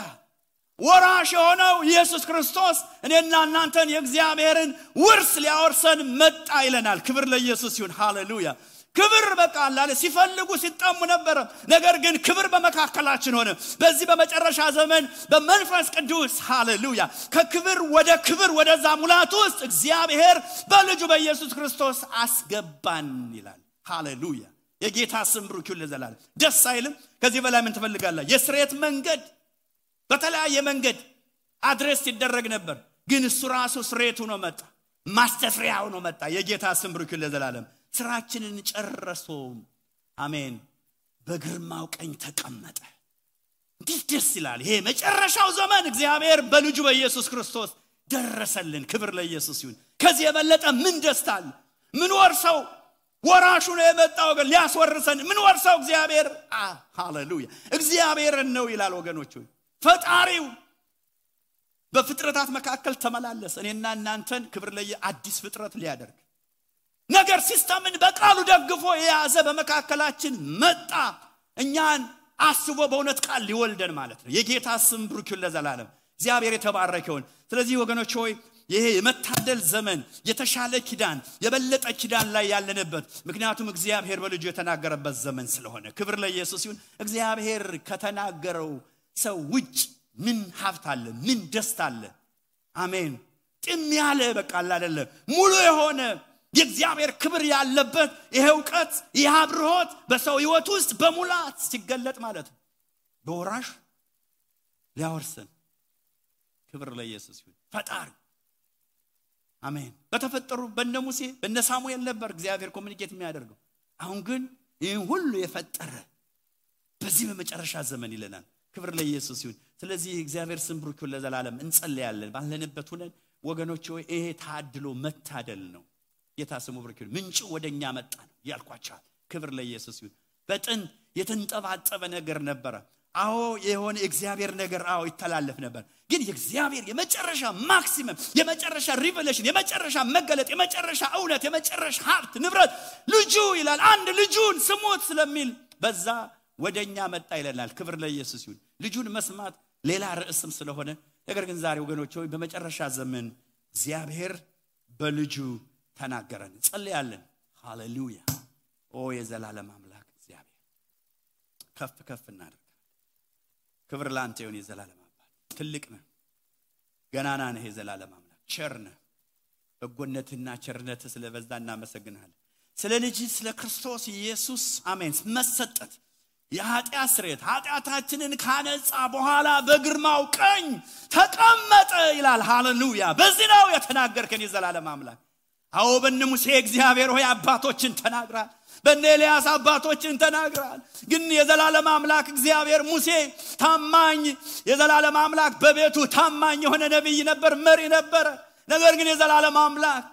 ወራሽ የሆነው ኢየሱስ ክርስቶስ እኔና እናንተን የእግዚአብሔርን ውርስ ሊያወርሰን መጣ ይለናል። ክብር ለኢየሱስ ይሁን። ሃሌሉያ። ክብር በቃ አላለ ሲፈልጉ ሲጣሙ ነበር። ነገር ግን ክብር በመካከላችን ሆነ። በዚህ በመጨረሻ ዘመን በመንፈስ ቅዱስ ሃሌሉያ ከክብር ወደ ክብር ወደዛ ሙላት ውስጥ እግዚአብሔር በልጁ በኢየሱስ ክርስቶስ አስገባን ይላል። ሃሌሉያ። የጌታ ስም ብሩክ ይሁን ለዘላለም። ደስ አይልም? ከዚህ በላይ ምን ትፈልጋለህ? የስሬት መንገድ በተለያየ መንገድ አድሬስ ይደረግ ነበር፣ ግን እሱ ራሱ ስሬቱ ነው መጣ፣ ማስተስሪያው ነው መጣ። የጌታ ስም ብሩክ ይሁን ለዘላለም። ስራችንን ጨርሶ አሜን በግርማው ቀኝ ተቀመጠ። እንዴት ደስ ይላል! ይሄ መጨረሻው ዘመን እግዚአብሔር በልጁ በኢየሱስ ክርስቶስ ደረሰልን። ክብር ለኢየሱስ ይሁን። ከዚህ የበለጠ ምን ደስታ አለ? ምን ወርሰው ወራሹ ነው የመጣው ግን ሊያስወርሰን ምን ወርሰው እግዚአብሔር ሃሌሉያ እግዚአብሔር ነው ይላል። ወገኖች ፈጣሪው በፍጥረታት መካከል ተመላለሰ። እኔና እናንተን ክብር ለአዲስ ፍጥረት ሊያደርግ ነገር ሲስተምን በቃሉ ደግፎ የያዘ በመካከላችን መጣ። እኛን አስቦ በእውነት ቃል ሊወልደን ማለት ነው። የጌታ ስም ብሩክ ይሁን ለዘላለም። እግዚአብሔር የተባረከ ይሁን። ስለዚህ ወገኖች ሆይ ይሄ የመታደል ዘመን የተሻለ ኪዳን የበለጠ ኪዳን ላይ ያለንበት ምክንያቱም እግዚአብሔር በልጁ የተናገረበት ዘመን ስለሆነ ክብር ለኢየሱስ ይሁን። እግዚአብሔር ከተናገረው ሰው ውጭ ምን ሀብት አለ? ምን ደስታ አለ? አሜን። ጥም ያለ በቃ አይደለ ሙሉ የሆነ የእግዚአብሔር ክብር ያለበት ይሄ ዕውቀት ይሄ አብርሆት በሰው ሕይወት ውስጥ በሙላት ሲገለጥ ማለት ነው። በወራሽ ሊያወርሰን ክብር ለኢየሱስ ይሁን። ፈጣሪ አሜን። በተፈጠሩ በነ ሙሴ በነ ሳሙኤል ነበር እግዚአብሔር ኮሙኒኬት የሚያደርገው። አሁን ግን ይሄን ሁሉ የፈጠረ በዚህ በመጨረሻ ዘመን ይለናል። ክብር ለኢየሱስ ይሁን። ስለዚህ እግዚአብሔር ስም ብሩክ ይሁን ለዘላለም። እንጸልያለን ባለንበት ሆነን ወገኖች ሆይ ይሄ ታድሎ መታደል ነው። ጌታ ስሙ ብሩክ ይሁን። ምንጩ ወደኛ መጣ ነው ያልኳችሁ። ክብር ለኢየሱስ ይሁን። በጥንት የተንጠባጠበ ነገር ነበር። አዎ የሆነ እግዚአብሔር ነገር አዎ ይተላለፍ ነበር። ግን የእግዚአብሔር የመጨረሻ ማክሲመም የመጨረሻ ሪቨሌሽን የመጨረሻ መገለጥ የመጨረሻ እውነት የመጨረሻ ሀብት ንብረት ልጁ ይላል። አንድ ልጁን ስሙት ስለሚል በዛ ወደኛ መጣ ይለናል። ክብር ለኢየሱስ ይሁን። ልጁን መስማት ሌላ ርዕስም ስለሆነ ነገር ግን ዛሬ ወገኖች ሆይ በመጨረሻ ዘመን እግዚአብሔር በልጁ ተናገረን። ጸልያለን። ሃሌሉያ። ኦ የዘላለም አምላክ እግዚአብሔር ከፍ ከፍ እናድርግ። ክብር ላንተ ይሁን። የዘላለም አባት ትልቅ ነህ፣ ገናና ነህ። የዘላለም አምላክ ቸር ነህ። በጎነትና ቸርነትህ ስለበዛ እናመሰግናለን። ስለ ልጅ ስለ ክርስቶስ ኢየሱስ አሜን መሰጠት የኃጢአት ስርየት ኃጢአታችንን ካነጻ በኋላ በግርማው ቀኝ ተቀመጠ ይላል። ሃሌሉያ። በዚህ ነው የተናገርከን የዘላለም አምላክ። አዎ በእነ ሙሴ እግዚአብሔር ሆይ አባቶችን ተናግራል፣ በእነ ኤልያስ አባቶችን ተናግራል። ግን የዘላለም አምላክ እግዚአብሔር ሙሴ ታማኝ የዘላለም አምላክ በቤቱ ታማኝ የሆነ ነብይ ነበር፣ መሪ ነበር። ነገር ግን የዘላለም አምላክ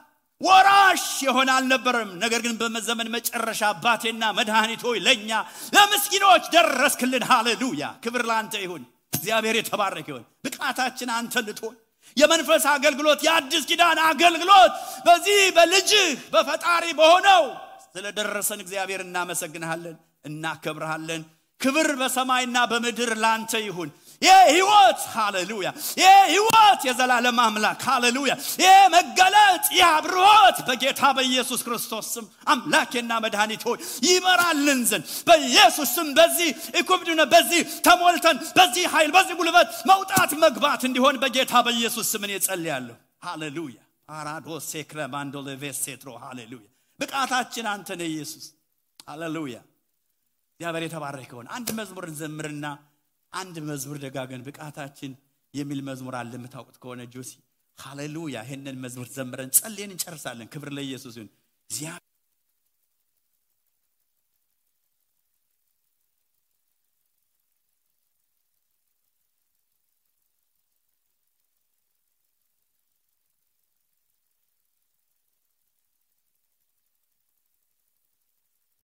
ወራሽ የሆነ አልነበረም። ነገር ግን በዘመን መጨረሻ አባቴና መድኃኒት ሆይ ለኛ ለምስኪኖች ደረስክልን። ሃሌሉያ። ክብር ላንተ ይሁን። እግዚአብሔር የተባረከ ይሁን። ብቃታችን አንተ ልትሆን የመንፈስ አገልግሎት የአዲስ ኪዳን አገልግሎት በዚህ በልጅ በፈጣሪ በሆነው ስለደረሰን እግዚአብሔር እናመሰግናለን፣ እናከብራለን። ክብር በሰማይና በምድር ላንተ ይሁን። የህይወት ሃሌሉያ የህይወት የዘላለም አምላክ ሃሌሉያ የመገለጥ የአብርሆት በጌታ በኢየሱስ ክርስቶስ ስም አምላኬና መድኃኒት ሆይ ይመራልን ዘንድ በኢየሱስ ስም በዚህ እኩብዱነ በዚህ ተሞልተን በዚህ ኃይል በዚህ ጉልበት መውጣት መግባት እንዲሆን በጌታ በኢየሱስ ስም እኔ ጸልያለሁ። ሃሌሉያ ፓራዶሴ ክለማንዶ ለቬሴትሮ ሃሌሉያ ብቃታችን አንተ ነህ ኢየሱስ ሃሌሉያ እግዚአብሔር የተባረከ ይሁን አንድ መዝሙር እንዘምርና አንድ መዝሙር ደጋገን ብቃታችን የሚል መዝሙር አለ የምታውቁት ከሆነ ጆሲ ሃሌሉያ ይሄንን መዝሙር ዘምረን ጸልየን እንጨርሳለን ክብር ለኢየሱስ ይሁን